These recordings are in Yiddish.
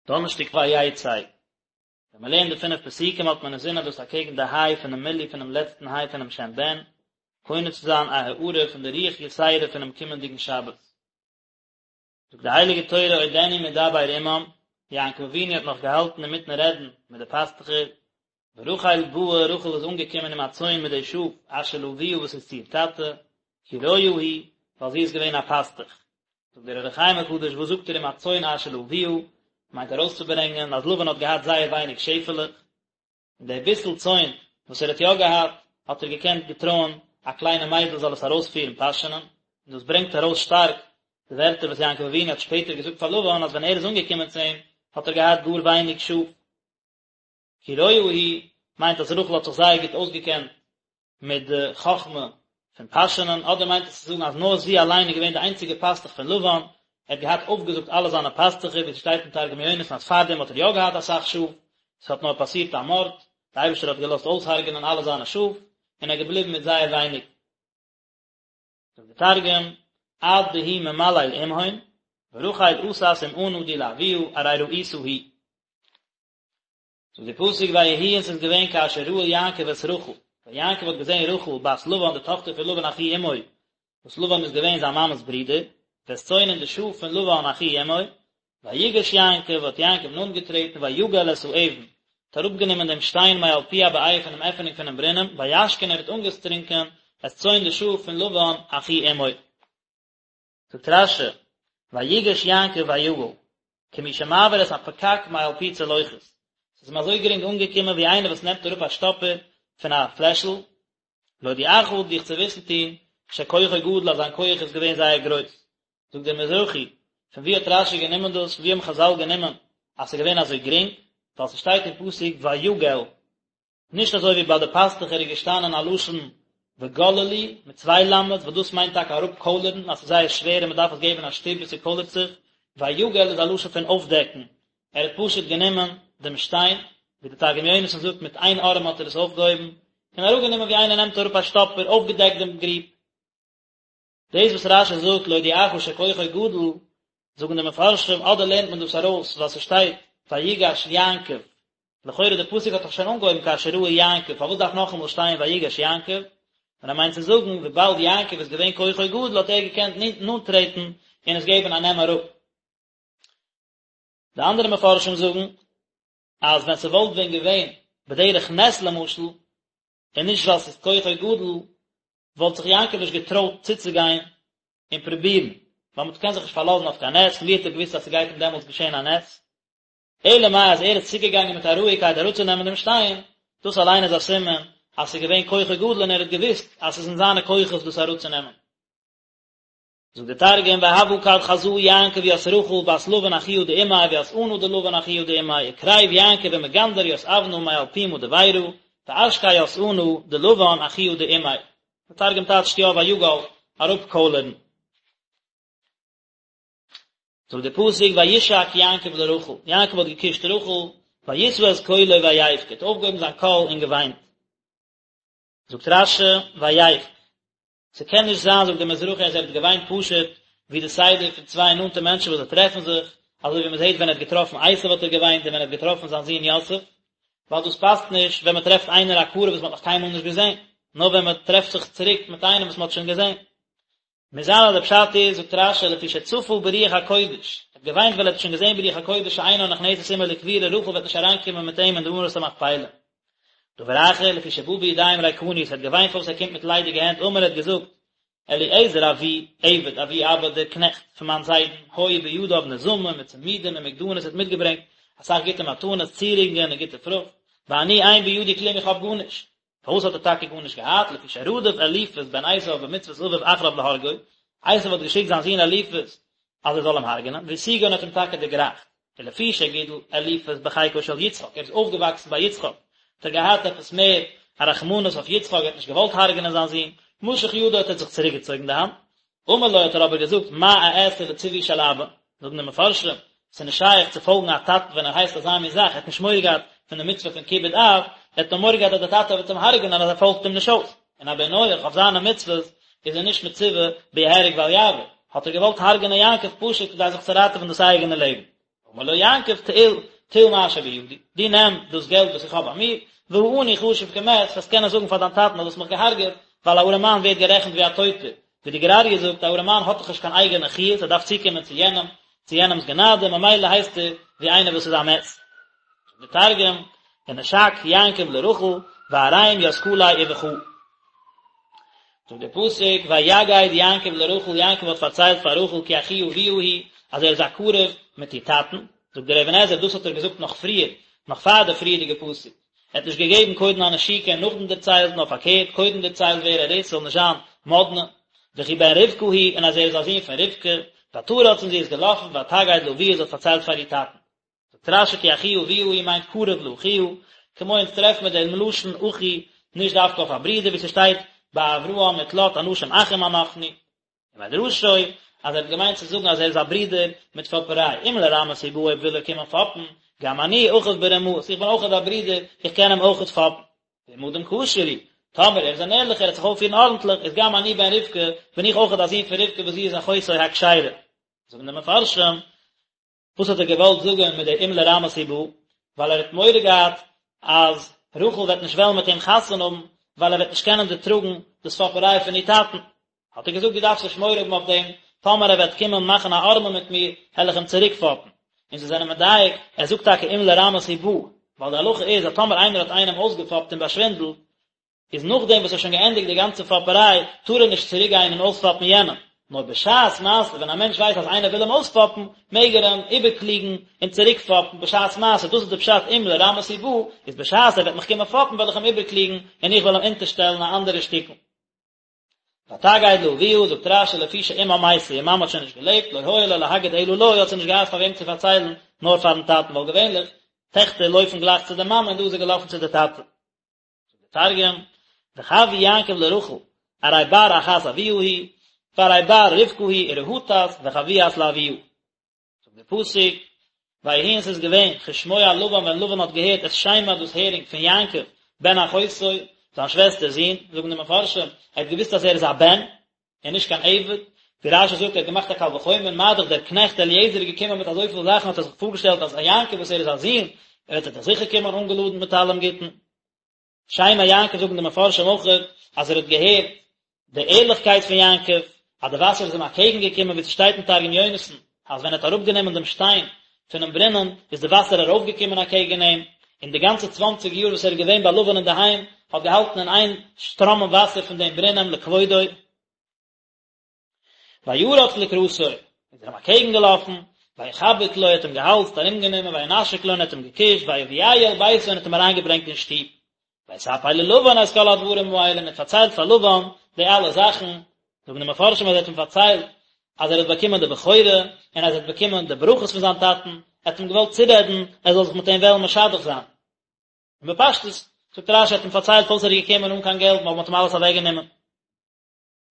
דאנערשטאג ויצא. ווען מען לערנט די פינף פסוקים האט מען אינזין אז דאס אקעגן די היי פונעם מילוי פונעם לעצטן היי פונעם שם בן, קונה צו זיין א הארה פון די רוח יתירה פונעם קומענדיגן שבת. זאגט די הייליגע תורה עודנו מדבר עמם, יעקב אבינו האט נאך געהאלטן אינמיטן רעדן מיט די פאסטוכער, ורחל באה, רחל איז אנגעקומען עם הצאן מיט די שאף, אשר לאביה וואס איז צו איר טאטע, כי רועה היא, ווייל זי איז געווען א פאסטוך. זאגט דער אור החיים הקדוש, וואס זאגט ער עם הצאן אשר לאביה, מיינט ארויסצוברענגען אז לבן האט געהאט זייער ווייניג שעפעלעך, און די ביסל צאן וואס ער האט יא געהאט, האט ער געקענט געטרויען א קליינע מיידל זאל עס ארויספירן פאשענען, און דאס ברענגט ארויס שטארק די ווערטער וואס יעקב אבינו האט שפעטער געזאגט פאר לבן אז ווען ער איז אנגעקומען צו אים האט ער געהאט גאר ווייניג שאף. כי רועה היא מיינט אז רחל האט זיך זייער גוט אויסגעקענט מיט די חכמה פון פאשענען, אדער מיינט עס צו זאגן אז נאר זי אליין איז געווען די איינציגע פאסטוך פון לבן, ער האט געהאט אויפגעזאגט אלע זיינע פאסטוכער, ווי עס שטייט אין תרגום יונתן אז פארדעם האט ער יא געהאט אסאך שאף, עס האט נאר פאסירט א מארד, די אייבערשטער האט געלאזט אויסהרג'נען אלע זיינע שאף, און ער איז געבליבן מיט זייער ווייניג. זאגט די תרגום, עד דהוא ממליל עמהון, ורחל אתת עם ענא די לאבוהא ארי רעיתא היא. זאגט די פסוק ויהי און ס'איז געווען כאשר ראה יעקב את רחל, ווען יעקב האט געזען רחל בת לבן די טאכטער פון לבן אחי אמו, וואס לבן איז געווען זיין מאמע'ס ברודער, ואת צאן און די שאף פון לבן אחי אמו, ויגש יעקב, האט יעקב נאנט געטרעטן ויגל את האבן, האט אראפגענומען דעם שטיין מעל פי הבאר פונעם עפענונג פונעם ברונעם, וישק און ער האט אנגעטרונקען את צאן די שאף פון לבן אחי אמו. זאגט רש"י, ויגש יעקב ויגל, כמי שמעביר את הפקק מעל פי צלוחית, ס'איז אים אזוי גרינג אנגעקומען ווי איינער וואס נעמט אראפ א שטאפער פון א פלעשל, להודיעך דיך צו וויסן טון, שכוחו גדול אז זיין כח איז געווען זייער גרויס. זאגט דער מזרחי, פון וואו האט רש"י גענומען דאס, פון וואו האבן חז"ל גענומען אז ס'איז געווען אזוי גרינג, ווייל ס'שטייט אין פסוק ויגל, נישט אזוי ווי ביי די פאסטוכער איז געשטאנען א לשון וגללו מיט צוויי למד'ס וואס דאס מיינט טאקע אראפקוילערן אז ס'איז זייער שווער און מ'דארף עס געבן א שטופ ביז ס'קוילערט זיך, ויגל איז א לשון פון אויפדעקן, ער האט פשוט גענומען דעם שטיין, ווי די תרגום יונתן זאגט מיט איין ארעם האט ער עס אויפגעהויבן, און אראפגענומען ווי איינער נעמט אראפ א שטאפער, אויפגעדעקט דעם גריב. דאס וואס רש"י זאגט להודיעך שכוחו גדול, זאגן די מפרשים אדער לערנט מען דאס ארויס ווייל ס'שטייט ויגש יעקב, לכאורה די פסוק האט דאך שוין אנגעהויבן כאשר ראה יעקב, פארוואס דארף נאכאמאל שטיין ויגש יעקב? און ער מיינט צו זאגן וויבאלד יעקב איז געווען כוחו גדול האט ער געקענט נאנט טרעטן און עס געבן א נעם אראפ. די אנדערע מפרשים זאגן אז ווען ס'וואלט ווען געווען בדרך נס למשל, און נישט ווייל ס'איז כוחו גדול, וואלט זיך יעקב נישט געטרויט צוצוגיין און פרובירן, ווייל מען קען זיך נישט פארלאזן אויף קיין נס, פון ווי האט ער געוואוסט אז ס'גייט אים דעמאלטס געשען א נס? אלא מאי אז ער איז צוגעגאנגען מיט א רואיגקייט אראפצונעמען דעם שטיין, דאס אליין איז א סימן אז ס'איז געווען כוחו גדול און ער האט געוואוסט אז ס'איז אין זיינע כוחות דאס אראפצונעמען. זאגט דער תרגום והוה כד חזא יעקב ית רחל בת לבן אחוהא דאמיה וית ענא דלבן אחוהא דאמיה וקריב יעקב ומגנדר ית אבנא מעל פומא דבירא ואשקי ית ענא דלבן אחוהא דאמיה דער תרגום טייטשט יא ויגל אראפקוילערן. זאגט דער פסוק וישק יעקב לרחל, יעקב האט געקושט רחל, וישא את קולו ויבך, האט אויפגעהויבן זיין קול און געוויינט. זאגט רש"י ויבך, ס'קען נישט זיין זאגט דער מזרחי אז ער האט געוויינט פשוט ווי די סדר פון צוויי נאנטע מענטשן וואס זיי טרעפן זיך, אזוי ווי מ'זעט ווען ער האט געטראפן עשו האט ער געוויינט און ווען ער האט געטראפן זיין זון יוסף, ווייל דאס פאסט נישט ווען מ'טרעפט איינער א קרוב וואס מ'האט נאך קיינמאל נישט געזען, נאר ווען מ'טרעפט זיך צוריק מיט איינעם וואס מ'האט שוין געזען. מוז זיין אז דער פשט איז, זאגט רש"י, לפי שצפה ברוח הקודש, ער האט געוויינט ווייל ער האט שוין געזען ברוח הקודש שאינה נכנסת עמו לקבורה, רחל וועט נישט אריינקומען מיט אים אין די מערת המכפלה. דבר אחר, לפי שבא בידיים ריקניות, ער האט געוויינט פארוואס ער קומט מיט ליידיגע הענט, אמר ער האט געזאגט, אליעזר אבי עבד אבי אבא דער קנעכט פון מיין זיידן, היו בידיו נזמים וצמידים ומגדנות ער האט מיטגעברענגט אסאך גוטע מתנות, צירונגען און גוטע פרוכט, ואני אין בידי כלום איך האב גארנישט. פארוואס האט ער טאקע גארנישט געהאט, לפי שרדף אליפז בן עשיו במצוות אביו אחריו להרגו, עשיו האט געשיקט זיין זון אליפז אז ער זאל אים הרג'נען, והשיגו און האט אים טאקע דערגרייכט, ולפי שגידל אליפז בחיקו של יצחק, ער איז אויפגעוואקסן ביי יצחק, האט ער געהאט עפעס מער א רחמנות אויף יצחק, ער האט נישט געוואלט הרג'נען זיין זון, משך ידו האט ער זיך צוריקגעצויגן די האנט, אמר לו האט ער אבער געזאגט מה אעשה לציווי של אבא, זאגן די מפרשים, ס'איז נישט שייך צו פאלגן א טאטן ווען ער הייסט אזא מין זאך, ער האט נישט מורא געהאט פון די מצוה פון כיבוד אב, ער האט נאר מורא געהאט אז דער טאטע וועט אים הרג'נען אז ער פאלגט אים נישט אויס, און א בן נח אויף זיינע מצוות איז ער נישט מצווה ביהרג ואל יעבור, האט ער געוואלט הרג'נען יעקב פשוט כדי זיך צו ראטעווען דאס אייגענע לעבן. אמר לו יעקב טול טול מה שבידי, דו נעם דאס געלט וואס איך האב ביי מיר, והעני חשוב כמת, וועסט קענען זאגן פאר דיין טאטן אז דו האסט מיך געהארגעט, ווייל א ארעמאן ווערט גערעכנט ווי א טויטער, ווי די גור אריה זאגט, א ארעמאן האט דאך נישט קיין אייגענע חיות, ער דארף צוקומען צו יענעם, צו יענעמ'ס גענאדע, ממילא הייסט ער ווי איינער וואס איז א מת. זאגט דער תרגום, ונשק יעקב לרחל, וערים ית כליה ובכא. זאגט דער פסוק, ויגד יעקב לרחל, יעקב האט פארציילט פאר רחל כי אחי אביה הוא, אז ער איז א קרוב מיט איר טאטן, זאגט דער אבן עזרא, דאס האט ער געזאגט נאך פריער, נאך פאר די פריערדיגע פסוק, ער האט נישט געגעבן קודם א נשיקה און נאכדעם דערציילט, נאר פארקערט, קודם דערציילט ווער ער איז, ס'זאל נישט זיין מאדנע, וכי בן רבקה הוא, און אז ער איז א זון פון רבקה, ותרץ און זי איז געלאפן, ותגד לאביה, זי האט פארציילט פאר איר טאטן. זאגט רש"י כי אחי אביה הוא מיינט קרוב לאחיה, כמו אונז טרעפן מיר דעם לשון אחי נישט דווקא אויף א ברודער ווי ס'שטייט ביי אברהם מיט לוט אנשים אחים אנחנו, ומדרשו אז ער האט געמיינט צו זאגן אז ער איז א ברודער מיט פאפעריי, אם לרמאות הוא בא אויב וויל ער קומען פאפן, גם אני אחיו ברמאות, איך בין אויכעט א ברודער, איך קען אים אויכעט פאפן. ואם אדם כשר הוא, טאמער ער איז אן ערליכער, ער וועט זיך אויפפירן ארנטליך, איז גם אני בן רבקה, בין איך אויכעט א זון פון רבקה וואס זי איז אחותו הכשרה. זאגן די מפרשים, וואס האט ער געוואלט זאגען מיט די אם לרמאות הוא בא? ווייל ער האט מורא געהאט אז רחל וועט נישט וועלן מיט אים חתונה האבן, ווייל ער וועט נישט קענען דערטראגן דאס פאפעריי פון איר טאטן. האט ער געזאגט דו דארפסט נישט מורא האבן אויף דעם, טאמער ער וועט קומען מאכן א ערמה מיט מיר, העל איך אים צוריק פאפן. און זיי זענען מדייק, ער זאגט טאקע אם לרמאות הוא בא, ווייל די הלכה איז אז טאמער איינער האט איינעם אויסגעפאפט און באשווינדלט, איז נאכדעם וואס ער האט שוין געענדיגט די גאנצע פאפעריי, טאר ער נישט צוריק גיין און אויספאפן יענעם. נאר בשעת מעשה ווען א מענטש ווייסט אז איינער וויל אים אויספאפן, מעג ער אים איבערקלוגן און צוריק פאפן בשעת מעשה, דאס איז די פשט אם לרמאות הוא בא, איז בשעת ער וועט מיך קומען פאפן וועל איך אים איבערקלוגן און איך וועל אים אונטערשטעלן א אנדערע שטיקל. ותגד לאביה, זאגט רש"י לפי שאמה מתה, איר מאמע האט שוין נישט געלעבט, לא היה לה להגיד אלא לו, האט זי נישט געהאט פאר וועם צו פארציילן, נאר פארן טאטן, ווייל געווענליך, טעכטער לויפן גלייך צו די מאמע און דא איז זי געלאפן צו די טאטע. זאגט דער תרגום, וחוי יעקב לרחל, ארי בר אחת אבוה הוא, וארי בר רבקה הוא, ורהטת וחויאת לאבוה. זאגט דער פסוק, ויהי און ס'איז געווען, כשמוע לבן ווען לבן האט געהערט את שמע דאס הערינג פון יעקב בן אחותו, זיין שוועסטער'ס זון, זאגן די מפרשים, ער האט געוואוסט אז ער איז א בן, און נישט קיין עבד, ווי רש"י זאגט ער האט געמאכט א קל וחומר, מה דאך דער קנעכט אליעזר איז געקומען מיט אזויפיל זאכן האט ער זיך פארגעשטעלט אז א יעקב וואס ער איז א זון, וועט ער דאך זיכער קומען אנגעלאדנט מיט אלעם גוטן. שמע יעקב זאגן די מפרשים אויך אז ער האט געהערט די ערליכקייט פון יעקב, אז די וואסער איז אים אקעגן געקומען, ווי ס'שטייט אין תרגום יונתן, אז ווען ער האט אראפגענומען דעם שטיין פונעם ברונעם, איז די וואסער ארויפגעקומען אקעגן אים, און די גאנצע צוואנציג יאר וואס ער איז געווען ביי לבן אינדערהיים, האט געהאלטן אין איין שטראמען וואסער פון דעם ברונעם לכבודו. וירץ לקראתו, איז ער אים אקעגן געלאפן, ויחבק לו, האט אים געהאלזט, ארומגענומען, וינשק לו, און האט אים געקושט, ויביאהו אל ביתו, און האט אים אריינגעברענגט אין שטוב. ויספר ללבן את כל הדברים האלה, און האט פארציילט פאר לבן די אלע זאכן, זאגן די מפרשים אז ער האט אים פארציילט אז ער האט באקומען די בכורה, און אז ער האט באקומען די ברכות פון זיין טאטן, ער האט אים געוואלט צורעדן ער זאל זיך מיט אים וועלן משדך זיין. און בפשטות, זאגט רש"י, ער האט אים פארציילט פארוואס ער איז געקומען אן קיין געלט, ווייל מען האט אים אלעס אוועקגענומען.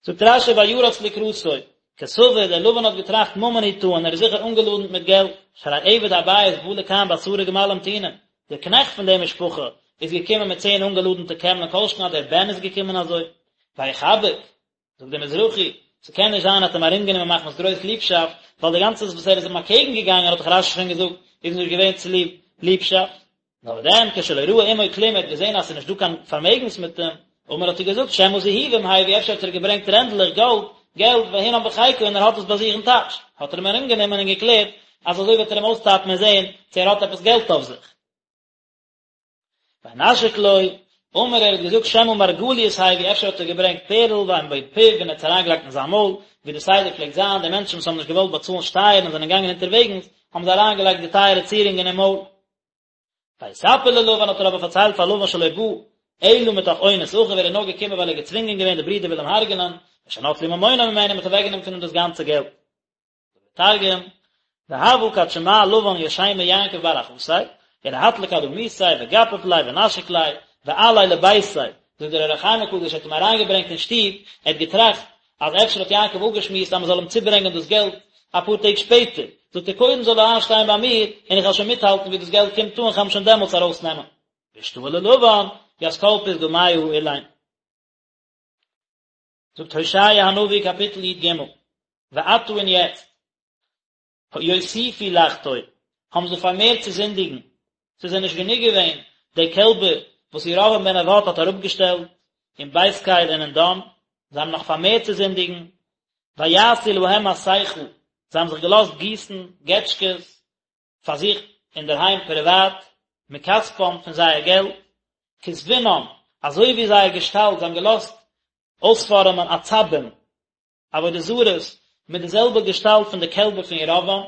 זאגט רש"י וירץ לקראתו, כסבור, דער לבן האט געטראכט ממון הוא טעון, ער איז זיכער אנגעלאדנט מיט געלט, שהרי עבד הבית בא לכאן בעשרה גמלים טעונים, דער קנעכט פון דער משפחה איז געקומען מיט צען אנגעלאדנטע קעמלען כל שכן אז דער בן איז געקומען אזוי, ויחבק, זאגט דער מזרחי, ס'קען נישט זיין ער האט אים ארומגענומען מחמת גרויס ליבשאפט, ווייל די גאנצע וואס ער איז אים אקעגן געגאנגען האט דאך רש"י שוין געזאגט איז נישט געווען צוליב ליבשאפט. נאר דען כשלא ראה עמו כלום ער האט געזען אז ס'איז נישט דא קיין פארמעגנס מיט אים, אמר האט ער געזאגט שמא זהובים הביא אפשר האט ער געברענגט רענדלעך גאלד, געלט, והנם בחיקו און ער האט עס ביי זיך אין טאש, האט ער אים ארומגענומען און געקלערט אז אזוי וועט ער אים אויסטאפן און זען צו ער האט עפעס געלט אויף זיך. וינשק לו, אמר ער האט געזאגט שמא מרגליות הביא אפשר האט ער געברענגט פערל והן בפיו און ער האט עס אריינגעלייגט אין זיין מויל, ווי די סדר פלעגט זיין, די מענטשן וואס האבן נישט געוואלט באצאלן שטייערן און זענען געגאנגען אונטערוועגנס, האבן זיי אריינגעלייגט די טייערע צירונגען אין מויל. ויספר ללבן האט ער אבער פארציילט פאר לבן שלא בא אלא מתוך אונס אחיו ער איז נאר געקומען ווייל ער איז געצווינגען געווען די ברידער וויל אים הרג'נען, ושנטלו ממונו ממנו מ'האט אוועקגענומען פון אים דאס גאנצע געלט. תרגום, והוה כד שמע לבן ית שמע יעקב בר אחתיה, ורהט לקד אמיתיה וגפף ליה ונשק ליה, ועאליה לביתיה, זאגט דער אור החיים הקדוש האט אים אריינגעברענגט אין שטוב, ער האט געטראכט אז אפשר האט יעקב אפגעשמועסט אז מען זאל אים צוברענגען דאס געלט אפאר טעג שפעטער, זאגט ער קודם זאל ער איינשטיין ביי מיר און איך וועל שוין מיטהאלטן ווי דאס געלט קומט אן, איך וועל אים שוין דעמאלטס ארויסנעמען. ואשתעי ללבן, ית כל פתגמיא האלין. זאגט הושע הנביא קאפיטל י"ג, ועתה און יעצט, יוסיפו לחטוא. האבן זיי פארמערט צו זינדיגן, ס'איז זיי נישט גענוג געווען די קעלבער וואס ירבעם בן נבט האט אראפגעשטעלט אין בית קל און אין דן, זיי האבן נאך פארמערט צו זינדיגן, ויעשו להם מסכה, זיי האבן זיך געלאזט גיסן געטשקעס פאר זיך אינדערהיים פריוואט, מכספם פון זייער געלט, כתבונם, אזוי ווי זייער געשטאלט, זיי האבן געלאזט אויספארעמען עצבים, עבודה זרות מיט די זעלבע געשטאלט פון די קעלבער פון ירבעם,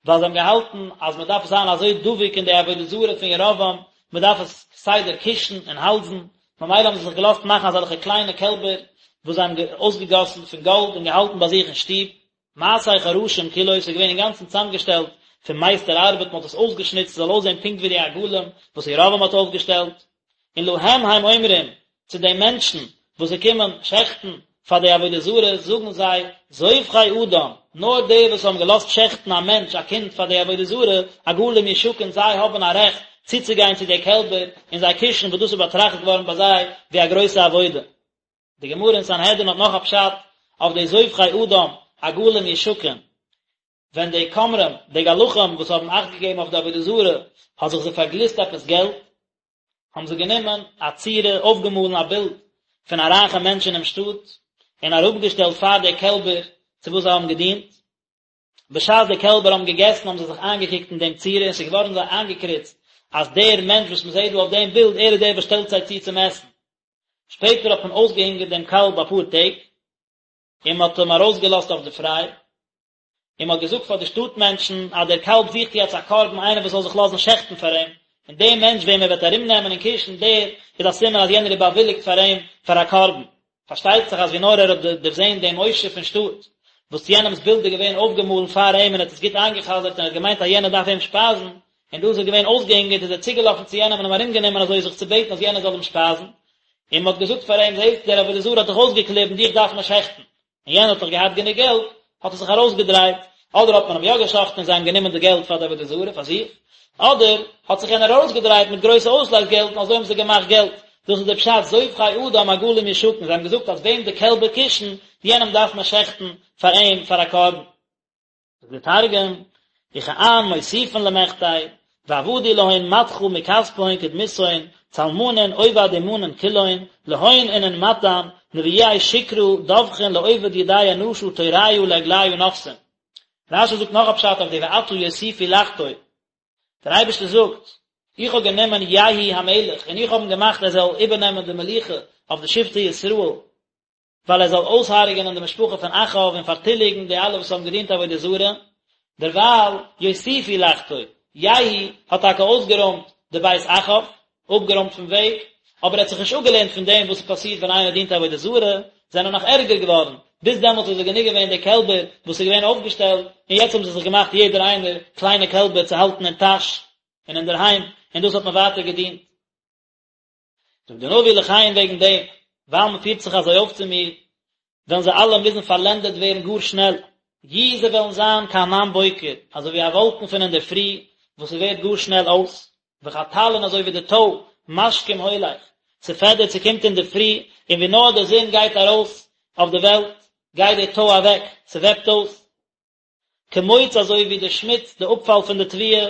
ווייל זיי האבן געהאלטן אז מען דארף זיין אזוי דבוק אין די עבודה זרה פון ירבעם, מען דארף עס כסדר קושן און האלזן, ממילא האבן זיי זיך געלאזט מאכן אזעלכע קליינע קעלבער וואס זיי האבן אויסגעגאסן פון גאלד און געהאלטן ביי זיך אין שטוב. מעשה חרשים כולו, ס'איז געווען אינגאנצן צוזאמגעשטעלט פון מייסטער ארבעט, מען האט עס אויסגעשניצט ס'זאל אויסזען פונקט ווי די עגלים וואס ירבעם האט אויפגעשטעלט. און להם הם אומרים, צו די מענטשן וואס זיי קומען שעכטן פאר די עבודה זרה, זאגן זיי, זובחי אדם, נאר די וואס האבן געלאזט שעכטן א מענטש, א קינד, פאר די עבודה זרה, עגלים ישקון, זיי האבן א רעכט צוצוגיין צו די קעלבער און זיי קושן, וואס דאס איז באטראכט געווארן ביי זיי ווי א גרויסע עבודה. די גמרא אין סנהדרין האט נאך א פשט אויף די זובחי אדם, עגלים ישקון, ווען די כומרים, די גלחים וואס האבן אכט געגעבן אויף די עבודה זרה, האט זיך זיי פארגליסט עפעס געלט, האבן זיי גענומען א צורה, אויפגעמאלן א בילד פון א רייכע מענטש אינעם שטאט, און אראפגעשטעלט פאר די קעלבער צו וואס זיי האבן געדינט. בשעת די קעלבער האבן געגעסן האבן זיי זיך איינגעקוקט אין דעם צורה און ס'איז געווארן זיי איינגעקריצט אז דער מענטש וואס מ'זעט דא אויף דעם בילד, ער איז דער וואס שטעלט זיי צו צום עסן. שפעטער האט מען אויסגעהונגערט דעם קאלב אפאר טעג, און מ'האט אים ארויסגעלאזט אויף די פריי. און מען האט געזאגט פאר די שטאט מענטשן אז דער קאלב זוכט יעצט א קרבן איינער וואס זאל זיך לאזן שעכטן פאר אים, און דער מענטש וועם ער וועט ארום נעמען און קושן דער איז א סימן אז יענער איז באוויליגט פאר אים פאר א קרבן. פארשטייט זיך אז ווי נאר ער האט דערזען דעם עושר פון שטאט וואס יענעמס בילד איז געווען אויפגעמאלן פאר אים און ער האט עס גוט איינגע'חזר'ט און ער האט געמיינט אז יענער דארף אים שפייזן, און דא איז ער געווען אויסגעהונגערט איז ער צוגעלאפן צו יענעם און אים ארומגענומען אזוי זיך צו בעטן אז יענער זאל אים שפייזן, און מען האט געזאגט פאר אים זעסט דער עבודה זרה האט דיך אויסגעקליבן דיך דארף מען שעכטן. און יענער האט דאך געהאט גענוג געלט, האט ער זיך ארויסגעדרייט, אדער האט מען אים יא געשחט'ן און זיי האבן גענומען די געלט פאר די עבודה זרה פאר זיך, אדער האט זיך יענער ארויסגעדרייט מיט גרויסע אויסלייז געלט און אזוי האבן זיי געמאכט געלט, דאס איז דער פשט זובחי אדם עגלים ישקון, זיי האבן געזאגט אז וועם די קעלבער קושן, יענעם דארף מען שעכטן פאר אים פאר א קרבן. זאגט דער תרגום, וכען מוסיפין למחטי, ועבדו להון מדחא מכספהון כדמותהון, צלמנין עובד אומנין כולהון, להון אינון מטען, נביאי שקרא דבחין לעובד ידי אנשא תוריא לעגליא נפסין. רש"י זאגט נאך א פשט אויף די ועתה יוסיפו לחטוא. דער אייבערשטער זאגט, איך האב גענומען יהוא המלך און איך האב אים געמאכט ער זאל איבערנעמען די מלוכה אויף די שבטי ישראל, ווייל ער זאל אויסהרג'ענען די משפחה פון אחאב און פארטיליגן די אלע וואס האבן געדינט עבודה זרה, דערווייל יוסיפו לחטוא, יהוא האט טאקע אויסגערוימט די בית אחאב, אפגערוימט פון וועג, אבער ער האט זיך נישט אפגעלערנט פון דעם וואס עס פאסירט ווען איינער דינט עבודה זרה, זענען נאך ערגער געווארן, ביז דעמאלטס איז עס גענוג געווען די קעלבער וואס איז געווען אויפגעשטעלט, און יעצט האבן זיי זיך געמאכט יעדער איינער קליינע קעלבער צו האלטן אין טאש און אינדערהיים, און דאס האט מען ווייטער געדינט. זאגט דער נביא לכן וועגן דעם, ווייל מען פירט זיך אזוי אויף צו מיר, וועלן זיי אלע מוזן פארלענדעט ווערן גאר שנעל, יהיו זיי וועלן זיין כענן בוקר, אזוי ווי א וואלקן פון אינדערפרי וואס ס'ווערט גאר שנעל אויס, וכטל און אזוי ווי די טוי, משכים הולך, ס'פעדערט ס'קומט אינדערפרי, און ווי נאר די זון גייט ארויס אויף די וועלט, גייט די טוי אוועק, ס'וועפט אויס. כמוץ אזוי ווי די שמוץ, די אפפאל פון די תבואה,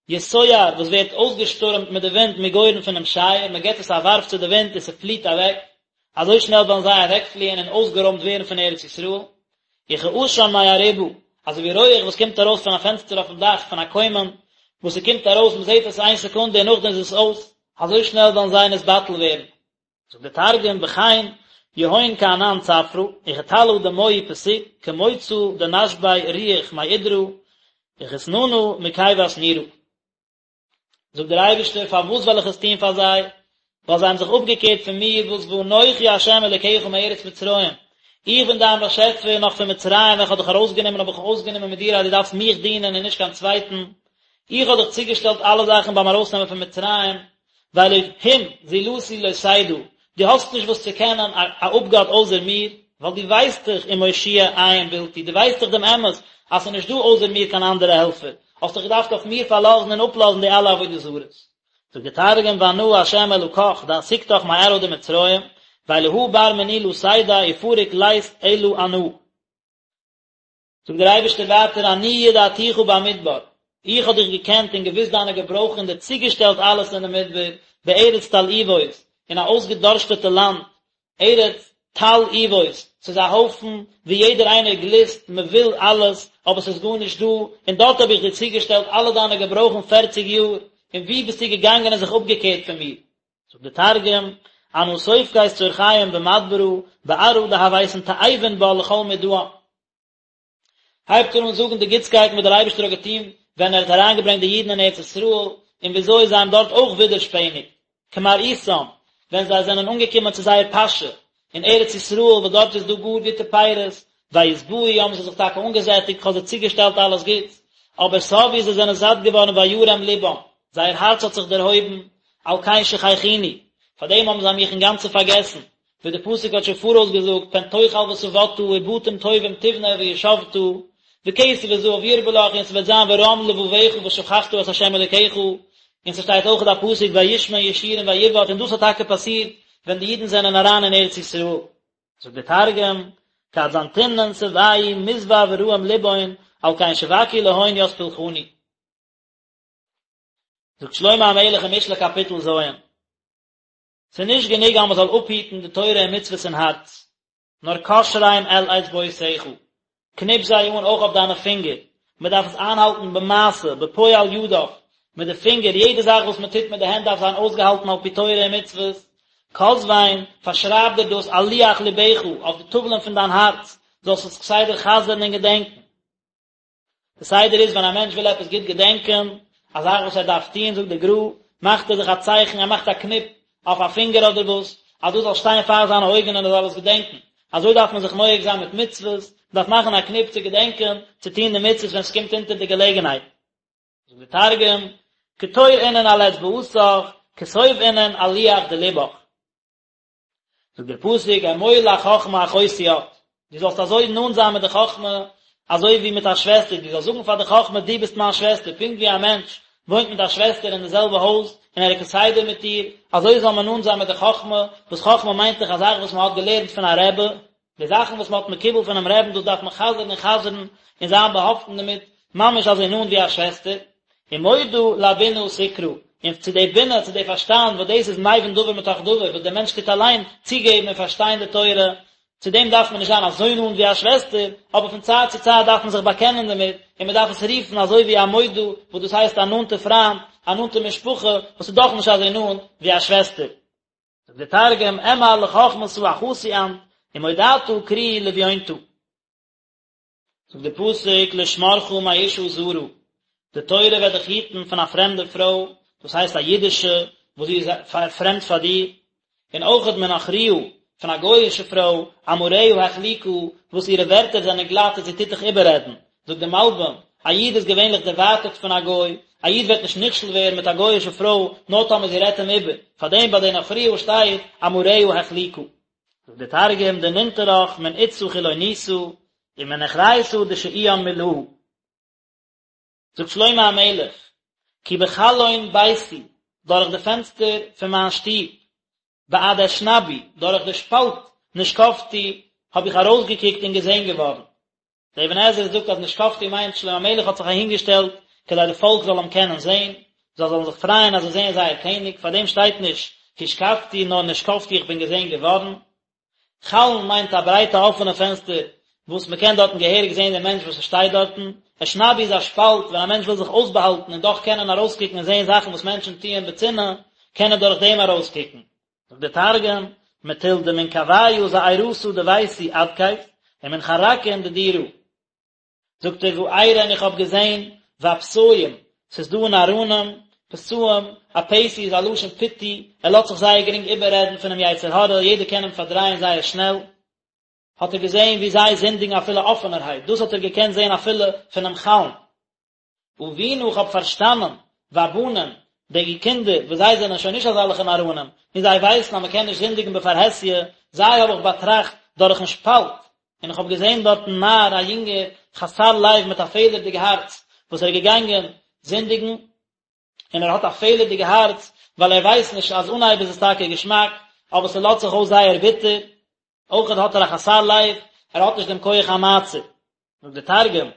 יסוער, וואס ווערט אויסגעשטורעמט מיט די ווינט מגורן פונעם שייער, מען געט עס א ווארף צו די ווינט און ס'פליעט אוועק, אזוי שנעל וועלן זיי אוועקפליען און אויסגערוימט ווערן פון ארץ ישראל. וכעשן מארובה, אזוי ווי רויעך וואס קומט ארויס פון א פענסטער אויפן דאך פון א קוימען, וואס ס'קומט ארויס, מען זעט עס איין סעקונדע און נאכדעם איז עס אויס, אזוי שנעל וועלן זיי נתבטל ווערן. זאגט דער תרגום בכן יהון כענן צפרא וכטלא דמועי פסיק כמוצא דנשבי רוח מאידרא וכתננא מכיבת נורא. זאגט דער אייבערשטער פארוואס וועל איך עס טון פאר זיי? ווייל זיי האבן זיך אפגעקערט פון מיר וואס ואנכי ה' אלקיך מארץ מצרים, איך בין דיין באשעפער נאך פון מצרים ווען איך האב דיך ארויסגענומען האב איך אויסגענומען מיט דיר אז דו דארפסט מיך דינען און נישט קיין צווייטן, איך האב דיך צוגעשטעלט אלע זאכן ביים ארויסנעמען פון מצרים, ואלהים זולתי לא תדע, דו האסט נישט וואס צו קענען א אפגאט אויסער מיר, ווייל דו ווייסט דאך ומושיע אין בלתי, דו ווייסט דאך דעם אמת אז ס'איז נישט דא אויסער מיר קיין אנדערע העלפער, האסט דיך געדארפט אויף מיר פארלאזן און אפלאזן די אלע עבודה זרות. זאגט דער תרגום ואנא ה' אלקך דאסיקתך מארעא דמצרים, ואלהא בר מיני לא תדע ופריק לית אלא אנא. זאגט דער אייבערשטער ווייטער אני ידעתיך במדבר. איך האב דיך געקענט און געוואוסט דיינע געברויכן און דיר צוגעשטעלט אלעס אין די מדבר, בארץ תלאובות, אין א אויסגעדארשטעטע לאנד, ארץ תלאובות, ס'איז א הויפן וואו יעדער איינער גליסט, מען וויל אלעס, אבער ס'איז גארנישט דא, און דארט האב איך דיר צוגעשטעלט אלע דיינע געברויכן פערציג יאר, און וואו ביסטו געגאנגען און זיך אפגעקערט פון מיר? זאגט דער תרגום, אנא סופקית צרכיהון במדברא, בארעא דהויתון תאיבין בה לכל מדען. הייבט ער אן זאגן די גוטסקייטן וואס דער אייבערשטער האט געטון ווען ער האט אריינגעברענגט די אידן אין ארץ ישראל, און וויאזוי זיי האבן דארט אויך ווידערשפעניגט, כמראיתם, ווען זיי זענען אנגעקומען צו זייער פאשע אין ארץ ישראל וואס דארט איז דא גאר גוטע פירות, וישבעו האבן זיי זיך טאקע אנגעזעטיגט, כ'האב זיי צוגעשטעלט אלעס גוטס, אבער שבעו זיי זענען זאט געווארן וירם לבם, זייער הארץ האט זיך דערהויבן, על כן שכחוני, פארדעם האבן זיי מיך אינגאנצן פארגעסן, ווי דער פסוק האט שוין פאראויס געזאגט, פן תאכל ושבעת ובתים טובים תבנה וישבת, וכסף וזהב ירבה לך, און ס'וועט זיין ורם לבבך ושכחת את ה' אלוקיך, און ס'שטייט אויך א פסוק וישמן ישורון ויבעט, און דאס האט טאקע פאסירט ווען די אידן זענען אריין אין ארץ ישראל. זאגט דער תרגום, כד זנתינון שבעו מסבע וראים לבהון, על כן שבקו להון ית פולחני. זאגט שלמה המלך אין משלי קאפיטל ז', ס'איז נישט גענוג אז מ'זאל אפהיטן די תורה און מצוות אין הארץ, נאר קשרם אל אצבעותיך, קניפ זיי אן אויך אויף דיינע פינגער, מ'דארף עס איינהאלטן במעשה, בפועל ידיו, מיט די פינגער, יעדע זאך וואס מ'טוט מיט די הענט דארף זיין אויסגעהאלטן על פי תורה און מצוות, כתבם, פארשרייב דיר דאס על לוח לבך, אויף די טאוולען פון דיין הארץ, זאלסט עס כסדר חזר'ן און געדענקען. די סדר איז ווען א מענטש וויל עפעס גוט געדענקען, א זאך וואס ער דארף טון, זאגט די גר"א, מאכט ער זיך א צייכן, ער מאכט א קניפ אויף א פינגער אדער וואס, אז דאס זאל שטיין פאר זיינע אויגן און ער זאל עס געדענקען. אזוי דארף מען זיך נוהג זיין מיט מצוות, מען דארף מאכן א קניפ צו געדענקען צו טון די מצוות ווען עס קומט אונטער די געלעגנהייט. זאגט דער תרגום, קטור אינון על אצבעתך, כתוב אינון על לוח דלבך. זאגט דער פסוק אמור לחכמה אחותי את, דו זאלסט אזוי נאנט זיין מיט די חכמה אזוי ווי מיט א שוועסטער, דו זאלסט זאגן פאר די חכמה דו ביסט מיין שוועסטער, פונקט ווי א מענטש וואוינט מיט א שוועסטער אין די זעלבע הויז און ער איז כסדר מיט איר, אזוי זאל מען נאנט זיין מיט די חכמה, וואס חכמה מיינט דאך א זאך וואס מען האט געלערנט פון א רבי, די זאכן וואס מען האט מקובל פונעם רעבן דאס דארף מען חזר'ן און חזר'ן און זיין באהאפטן דערמיט, ממש אזוי נאנט ווי א שוועסטער. ומודע לבינה תקרא, און צו די בינה, צו די פארשטאנד, וואס דאס איז מבין דבר מתוך דבר, וואס דער מענטש טוט אליין צוגעבן און פארשטיין די תורה, צו דעם דארף מען נישט זיין אזוי נאנט ווי א שוועסטער, אבער פון צייט צו צייט דארף מען זיך באקענען דערמיט, און מען דארף עס רופן אזוי ווי א מודה, וואס דאס הייסט א נאנטע פריינד, א נאנטע משפחה, וואס איז דאך נישט אזוי נאנט ווי א שוועסטער. זאגט דער תרגום, אמר לחכמתא אחתי אנת, ומודעתא קרי לביונתא. זאגט דער פסוק לשמרך מאשה זרה, די תורה וועט דיך היטן פון א פרעמדע פרוי, דאס הייסט א אידישע וואס זי איז פרעמד פאר דיר, און אויכעט מנכריה, פון א גוי'אישע פרוי, אמריה החליקה, וואס אירע ווערטער זענען גלאט און זי טוט דיך איבעררעדן. זאגט דער מלבי"ם, א איד איז געווענליך דערווייטערט פון א גוי, א איד וועט נישט נכשל ווערן מיט א גוי'אישע פרוי נאר טאמער זי רעדט אים איבער, פארדעם ביי די נכריה שטייט אמריה החליקה. זאגט דער תרגום, דננטרך מן אתתא חילוניתא, ומנוכריתא דשאיאן מילהא. זאגט שלמה המלך, כי בחלון ביתי, דורך די פענסטער פון מיין שטוב, בעד אשנבי, דורך די שפאלט נשקפתי, האב איך ארויסגעקוקט און געזען געווארן. דער אבן עזרא זאגט אז נשקפתי מיינט שלמה המלך האט זיך אהינגעשטעלט כדי די פאלק זאל אים קענען זען, זיי זאלן זיך פרייען אז זיי זעען זייער קעניג, פאר דעם שטייט נישט השקפתי נאר נשקפתי איך בין געזען געווארן. חלון מיינט א ברייטע אפענע פענסטער וואס מען קען דארטן געהעריג זען דעם מענטש וואס עס שטייט דארטן. אשנבי איז א שפאלט ווען א מענטש וויל זיך אויסבאהאלטן און דאך קענען ארויסקוקן און זען זאכן וואס מענטשן טוען בצנעה, קען ער דורך דעם ארויסקוקן. זאגט דער תרגום, מטול דמנקויא זעירתא דביתי אדכיף, ומן חרקין דדירא. זאגט ער וארא און איך האב געזען ופתאים, ס'איז דא נאראנים, פתאים, א פתי איז א לשון פיתוי, ער לאזט זיך זייער גרינג איבעררעדן פונעם יצר הרע, יעדער קען אים פארדרייען זייער שנעל, האט ער געזען ווי זיי זינדיגן אפילו אפענערהייט, דאס האט ער געקענט זען אפילו פונעם חלון. אבינה איך האב פארשטאנען, והבנים, די קינדער, וואס זיי זענען שוין נישט אזעלכע נאראנים, און זיי ווייסן אז מען קען נישט זינדיגן בפרהסיא, זיי האב איך באטראכט דורכן שפאלט, און איך האב געזען דארטן נער א יונגער חסר לב מיט א פעלערדיג הארץ, וואס ער איז געגאנגען זינדיגן, און ער האט א פעלערדיגע הארץ, ווייל ער ווייסט נישט אז אנהייב איז עס טאקע געשמאק, אבער ס'לאזט זיך אויס זייער ביטער, אויכעט האט ער א חסר לב, ער האט נישט דעם כח המעצר. זאגט דער תרגום,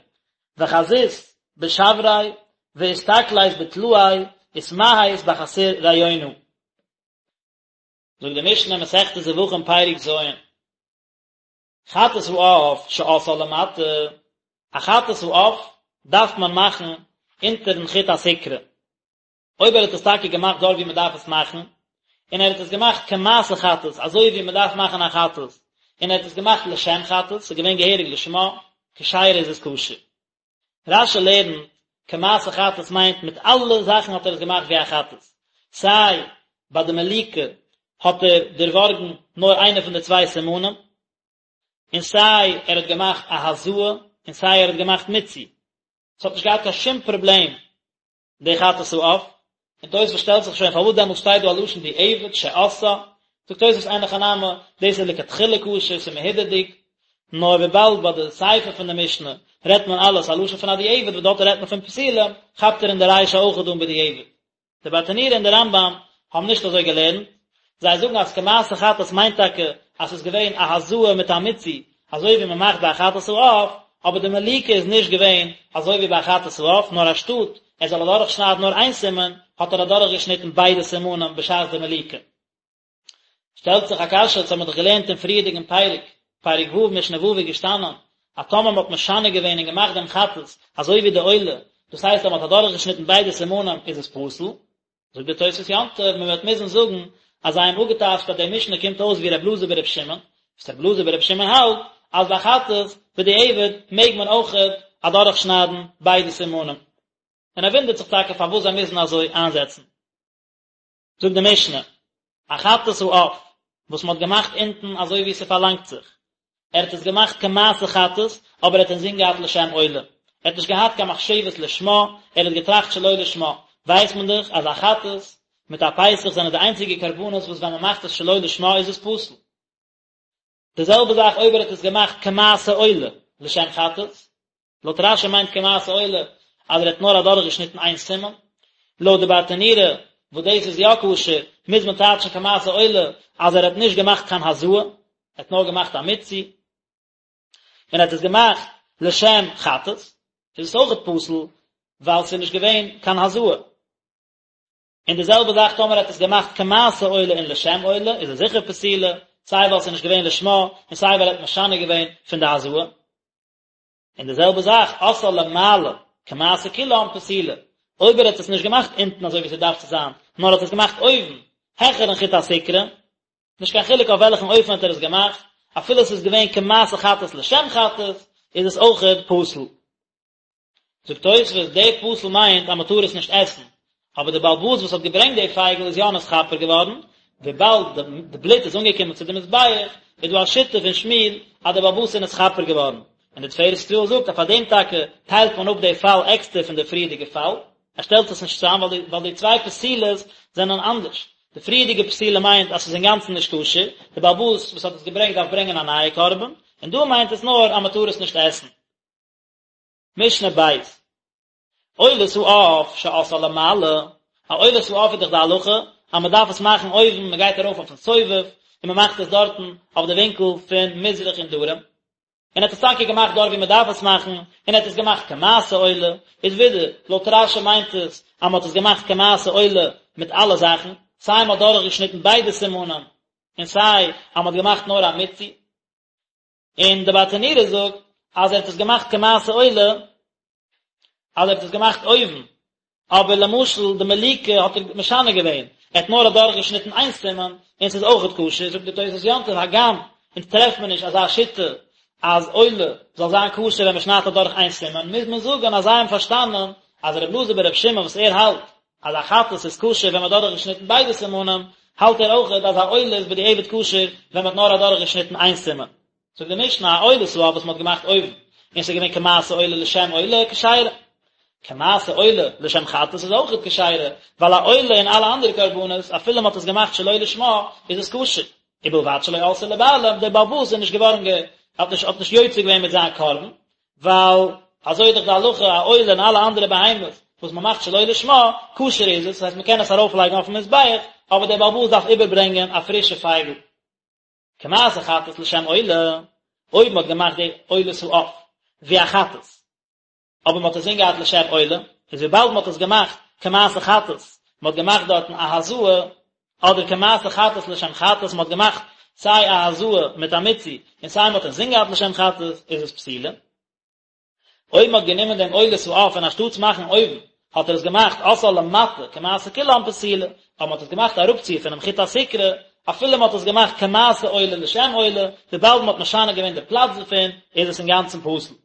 וחזית בשבריה. ואסתכלית בטלאי ותמהית בחסיר ריונה. זאגט די משנה מסכת זבחים פרק ז', חטאת העוף שעשאה למטה, א חטאת העוף דארף מען מאכן אונטערן חוט הסיקרא, אויב ער האט עס טאקע געמאכט דארט ווי מען דארף עס מאכן, און ער האט עס געמאכט כמעשה חטאת, אזוי ווי מען דארף מאכן א חטאת, און ער האט עס געמאכט לשם חטאת, ס'איז געווען געהעריג לשמה, כשרה איז עס כשר. רש"י לערנט, כמעשה חטאת מיינט מיט אלע זאכן האט ער עס געמאכט ווי א חטאת, סיי ביי די מליקה האט ער דערווארגן נאר איינע פון די צוויי סימנים, און סיי ער האט געמאכט א הזאה, און סיי ער האט געמאכט מיצוי. ס'האט נישט געהאט קיין שום פראבלעם די חטאת העוף, און תוספות שטעלט זיך שוין פארוואס דעמאלטס שטייט דא א לשון דיעבד שעשאה, זאגט תוספות אין הכי נמי, דאס איז לכתחילה כשר, ס'איז מהודר'דיג, נאר וויבאלד ביי די סיפא פון די משנה רעדט מען אלעס א לשון פון א דיעבד וואס דארט רעדט מען פון פסולים, כאפט ער אין די רישא אויכעט אן בדיעבד. די ברטנורא און די רמב"ם האבן נישט אזוי געלערנט, זיי זאגן אז כמעשה חטאת מיינט טאקע אז ס'איז געווען א הזאה מיט א מיצוי, אזוי ווי מ'מאכט ביי א חטאת העוף, אבער די מליקה איז נישט געווען אזוי ווי ביי א חטאת העוף, נאר אנשטאט ער זאל אדורכשניידן נאר איין סימן, האט ער אדורכגעשניטן ביידע סימנים בשעת די מליקה. שטעלט זיך א קשיא, אונז האמיר דאך געלערנט אין פריערדיגן פרק, פרק ו' משנה ו' איז געשטאנען, אז טאמער מ'האט משנה געווען און געמאכט דעם חטאת אזוי ווי די עולה, דאס הייסט אז מ'האט אדורכגעשניטן ביידע סימנים איז עס פסול, זאגט דער תוספות יום טוב, מען וועט מוזן זאגן אז זיי האבן אפגעטייטשט אז די משנה קומט אויס ווי ר' אלעזר בר' שמעון, וואס ר' אלעזר בר' שמעון האלט אז ביי חטאת בדיעבד מעג מען אויכעט אדורכשניידן ביידע סימנים. און ער וואונדערט זיך טאקע פארוואס זיי מוזן אזוי איינזעצן. זאגט די משנה, א חטאת העוף וואס מען האט געמאכט אונטן אזוי ווי ס'פארלאנגט זיך, ער האט עס געמאכט כמעשה חטאת, אבער ער האט אינזין געהאט לשם עולה, ער האט נישט געהאט קיין מחשבת לשמה, ער האט געטראכט שלא לשמה, ווייסט מען דאך אז א חטאת מיט א פסח זענען די איינציגע קרבנות וואס ווען מען מאכט עס שלא לשמה איז עס פסול. די זעלבע זאך אויב ער האט עס געמאכט כמעשה עולה לשם חטאת, לויט רש"י מיינט כמעשה עולה אז ער האט נאר אדורכגעשניטן איין סימן, לויט די ברטנורא וואס דאס איז יא כשר, מוז מען טייטשן כמעשה עולה אז ער האט נישט געמאכט קיין הזאה, ער האט נאר געמאכט א מיצוי, און ער האט עס געמאכט לשם חטאת, איז עס אויכעט פסול ווייל ס'איז נישט געווען קיין הזאה. און די זעלבע זאך טאמער ער האט עס געמאכט כמעשה עולה און לשם עולה, איז עס זיכער פסולה, סיי ווייל ס'איז נישט געווען לשמה, און סיי ווייל ער האט משנה געווען פון די הזאה. און די זעלבע זאך עשאה למעלה כמעשה כולם פסולה, אויב ער האט עס נישט געמאכט אונטן אזוי ווי ס'דארף צו זיין, נאר האט עס געמאכט אויבן, העכערן חוט הסיקרא, נישט קיין חילוק אויף וועלכן אופן האט ער עס געמאכט, אפילו עס איז געווען כמעשה חטאת לשם חטאת, איז עס אויכעט פסול. זאגט תוספות, די פסול מיינט אז מען טאר עס נישט עסן, אבער די בעל הבית וואס האט געברענגט די פייגל איז יא נתכפר געווארן, וויבאלד די בלוט איז אנגעקומען צו די מזבח, איז דא א שיטה פון שמואל אז די בעל הבית איז נתכפר געווארן, און די תפארת ישראל זאגט אז פאר דעם טאקע טיילט מען אפ די פאל עקסטער פון די פריערדיגע פאל, ער שטעלט עס נישט צוזאם ווייל די צוויי פסילות זענען אנדערש, די פריערדיגע פסילה מיינט אז ס'איז אינגאנצן נישט כשר, די בעל הבית וואס האט עס געברענגט דארף ברענגען א נייע קרבן, און דא מיינט עס נאר אז מען טאר עס נישט עסן. משנה בית, עולת העוף שעשאה למעלה, א עולת העוף איז דאך די הלכה אז מען דארף עס מאכן אויבן, מען גייט ארויף אויפן סובב און מען מאכט עס דארטן אויף די ווינקל פון מזרח און דרום, און ער האט עס טאקע געמאכט דארט ווי מען דארף עס מאכן, און ער האט עס געמאכט כמעשה עולה, איז ווידער, לויט רש"י מיינט עס אז מען האט עס געמאכט כמעשה עולה מיט אלע זאכן, סיי מען האט דורכגעשניטן ביידע סימנים, און סיי אז מען האט געמאכט נאר א מיצוי. און די ברטנורא זאגט אז ער האט עס געמאכט כמעשה עולה, אז ער האט עס געמאכט אויבן, אבער למשל די מליקה האט ער משנה געווען, ער האט נאר אדורך געשניטן איין סימן, און ס'איז אויכעט כשר, זאגט די תוס' יום טוב, הגם אונז טרעפט מען נישט אזא שיטה אז עולה זאל זיין כשר ווען מ'שניידט אדורך איין סימן, מוז מען זאגן אז זיי האבן פארשטאנען אז ר' אלעזר בר' שמעון וואס ער האלט אז א חטאת איז כשר ווען מ'האט אדורכגעשניטן ביידע סימנים, האלט ער אויכעט אז א עולה איז בדיעבד כשר ווען מ'האט נאר אדורכגעשניטן איין סימן. זאגט די משנה, א עולת העוף וואס מ'האט געמאכט אויבן, און ס'איז געווען כמעשה עולה לשם עולה, כשרה. כמעשה עולה לשם חטאת איז אויכעט כשרה, ווייל א עולה און אלע אנדערע קרבנות, אפילו מ'האט עס געמאכט שלא לשמה, איז עס כשר. ובלבד שלא עלתה לבעלים, דער בעל הבית איז נישט געווארן גע, האט נישט האט נישט יוצא געווען מיט זיין קרבן, ווייל אזוי איז דאך די הלכה, א עולה און אלע אנדערע בהמות וואס מען מאכט שלא לשמה, כשר איז עס, דאס הייסט מען קען עס ארויפלייגן אויפן מזבח, אבער דער בעל הבית דארף איבערברענגען א פרישע פייגל. כמעשה חטאת לשם עולה, אויב מען האט געמאכט די עולת העוף ווי א חטאת, אבער מען האט עס אינזין געהאט לשם עולה. איז וויבאלד מען האט עס געמאכט כמעשה חטאת, מען האט געמאכט דארטן א הזאה, אדער כמעשה חטאת לשם חטאת, מען האט געמאכט סיי א הזאה מיט א מיצוי, און סיי מען האט אינזין געהאט לשם חטאת, איז עס פסולה. אויב מען האט גענומען דעם עולת העוף און אנשטאטס מאכן אויבן, האט ער עס געמאכט עשאה למטה כמעשה כולן פסולה, אויב מען האט עס געמאכט אראפציר פונעם חוט הסיקרא, אפילו מען האט עס געמאכט כמעשה עולה לשם עולה, וויבאלד מען האט משנה געווען די פלאץ דערפון, איז עס אינגאנצן פסול.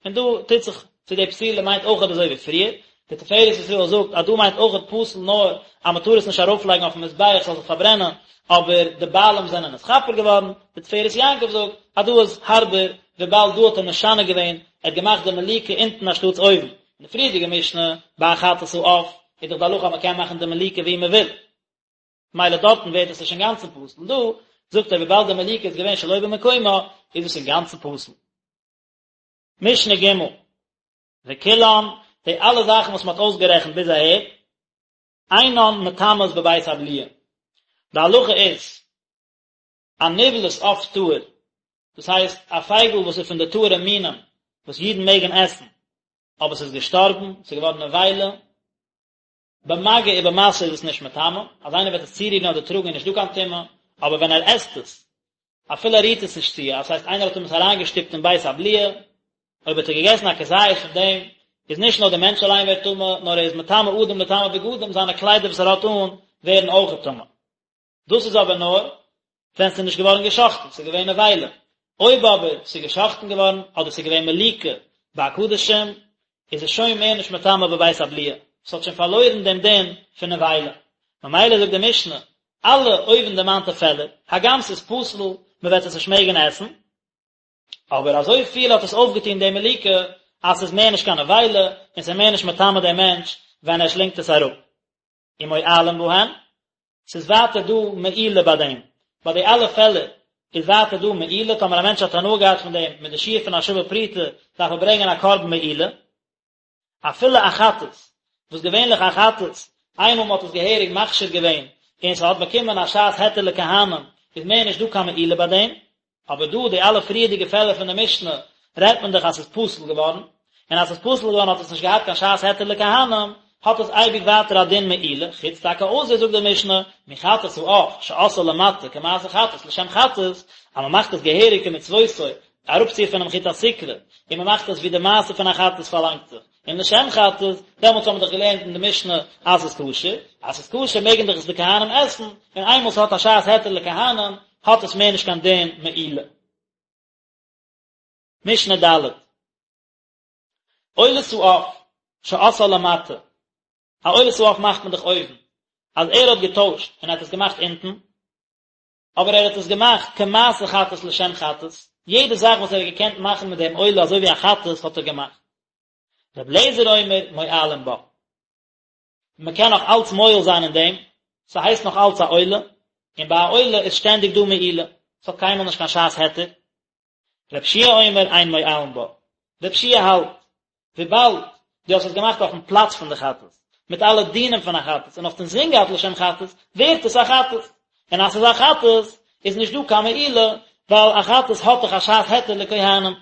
און דא טוט זיך צו די פסולה מיינט אויכעט אזוי ווי פריער, די תפארת ישראל זאגט אז דא מיינט אויכעט פסול נאר אז מען טאר עס נישט ארויפלייגן אויפן מזבח ס'זאל זיך פארברענען, אבער די בעלים זענען נתכפר געווארן, די תפארת יעקב זאגט אז דא איז הארבער וויבאלד דא האט ער משנה געווען, ער האט געמאכט די מליקה אונטן אנשטאטס אויבן, אין די פריערדיגע משנה ביי א חטאת העוף איז דאך די הלכה אז מען קען מאכן די מליקה ווי מען וויל, מילא דארטן ווערט עס נישט אינגאנצן פסול, דא זאגט ער וויבאלד די מליקה איז געווען שלא במקומה איז עס אינגאנצן פסול. משנה ג' וכולן, די אלע זאכן וואס מען האט אויסגערעכנט ביז אהער, אינן מטמאות בבית הבליעה. די הלכה איז, א נבלת עוף טהור, דאס הייסט א פייגל וואס איז פון די טהור'ע מינים וואס אידן מעגן עסן, אבער ס'איז געשטארבן, ס'איז געווארן נבילה, במגע ובמשא איז עס נישט מטמא, אז איינער וועט עס צורירן אדער טראגן איז נישט דא קיין טומאה, אבער ווען ער עסט עס, אפילו ער רירט עס נישט צו, דאס הייסט איינער האט אים עס אריינגעשטופט אין בית הבליעה, אויב האט ער געגעסן א כזית פון דעם, איז נישט נאר דער מענטש אליין ווערט טמא, נאר ער איז מטמא אדם לטמא בגדים, זיינע קליידער וואס ער האט אן ווערן אויכעט טמא. דאס איז אבער נאר ווען ס'איז נישט געווארן געשאכטן, ס'איז געווען נבילה. אויב אבער ס'איז געשאכטן געווארן, אדער ס'איז געווען מליקה ביי קדשים, איז עס שוין מער נישט מטמא בבית הבליעה, ס'האט שוין פארלוירן דעם דין פון נבילה. ממילא זאגט די משנה, אלע אויבנדערמאנטע פעלער, הגם ס'איז פסול, מ'וועט עס נישט מעגן עסן, אבער אזוי פיל האט עס אויפגעטון די מליקה, אז ס'איז מער נישט קיין נבילה, און ס'איז מער נישט מטמא דעם מענטש ווען ער שלינגט עס אראפ. ומועלין בהן, ס'איז ווייטער דא מעילה ביי דעם, ביי די אלע פעלער איז ווייטער דא מעילה, טאמער א מענטש האט הנאה געהאט פון דעם מיט די שיעור פון א שווה פרוטה, דארף ער ברענגען א קרבן מעילה, אפילו א חטאת, וואס געווענליך א חטאת, איינמאל מ'האט עס געהעריג מכשיר געווען, און ס'האט באקומען א שעת היתר לכהנים, איז מער נישט דא קיין מעילה ביי דעם, אבער דא די אלע פריערדיגע פעלער פון די משנה רעדט מען דאך אז ס'איז פסול געווארן, און אז ס'איז פסול געווארן האט עס נישט געהאט קיין שעת היתר לכהנים, האט עס אייביג ווייטער א דין מעילה, חוץ טאקע אויסער זאגט די משנה, מחטאת העוף שעשאה למטה כמעשה חטאת לשם חטאת, אז מ'מאכט עס געהעריג כמצוותו, אראפציר פונעם חוט הסיקרא, און מ'מאכט עס ווי די מעשה פון א חטאת פארלאנגט זיך. און לשם חטאת, דעמאלטס האבן מיר דאך געלערנט אין די משנה אז ס'איז כשר, אז ס'איז כשר מעגן דאך עס די כהנים עסן, און איינמאל ס'האט א שעת היתר לכהנים, האט עס מער נישט קיין דין מעילה. משנה ד'. עולת העוף שעשאה למטה, א עולת העוף מאכט מען דאך אויבן, אז ער האט געטוישט און ער האט עס געמאכט אונטן, אבער ער האט עס געמאכט כמעשה חטאת לשם חטאת, יעדע זאך וואס ער האט געקענט מאכן מיט דעם עולה אזוי ווי א חטאת האט ער געמאכט. רבי אליעזר אומר מועלין בה. מען קען נאך אלץ מועל זיין אין דעם, ס'הייסט נאך אלץ א עולה, און ביי א עולה איז שטענדיג דא מעילה, ס'האט קיינמאל נישט קיין שעת היתר. רבי יהושע אומר אין מועלין בה. רבי יהושע האלט, וויבאלד דו האסט עס געמאכט אויפן פלאץ פון די חטאת, מיט אלע דינים פון א חטאת, און האסט אינזין געהאט לשם חטאת, ווערט עס א חטאת. און אז ס'איז א חטאת, איז נישט דא קיין מעילה, ווייל א חטאת האט דאך א שעת היתר לכהנים.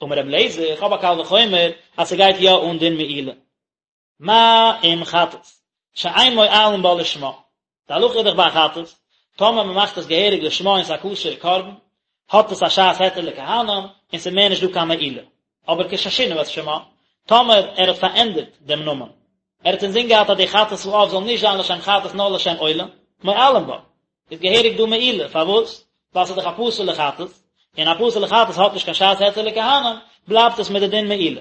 אמר רבי אליעזר, איך האב א קל וחומר אז ס'גייט יא אן דין מעילה. מה אם חטאת, שאין מועלין בה לשמה. די הלכה איז דאך ביי א חטאת, טאמער מען מאכט עס געהעריג לשמה און ס'איז א כשר'ע קרבן, האט עס א שעת היתר לכהנים, און ס'איז מער נישט דא קיין מעילה. אבער כששינה את שמה, טאמער ער האט פארענדערט דעם נאמען, ער האט אינזין געהאט אז די חטאת העוף זאל נישט זיין לשם חטאת נאר לשם עולה, מועלין בה, איז געהעריג דא מעילה, פארוואס? ווייל ס'איז דאך א פסול'ע חטאת, און א פסול'ע חטאת האט נישט קיין שעת היתר לכהנים, בלייבט עס מיט די דין מעילה.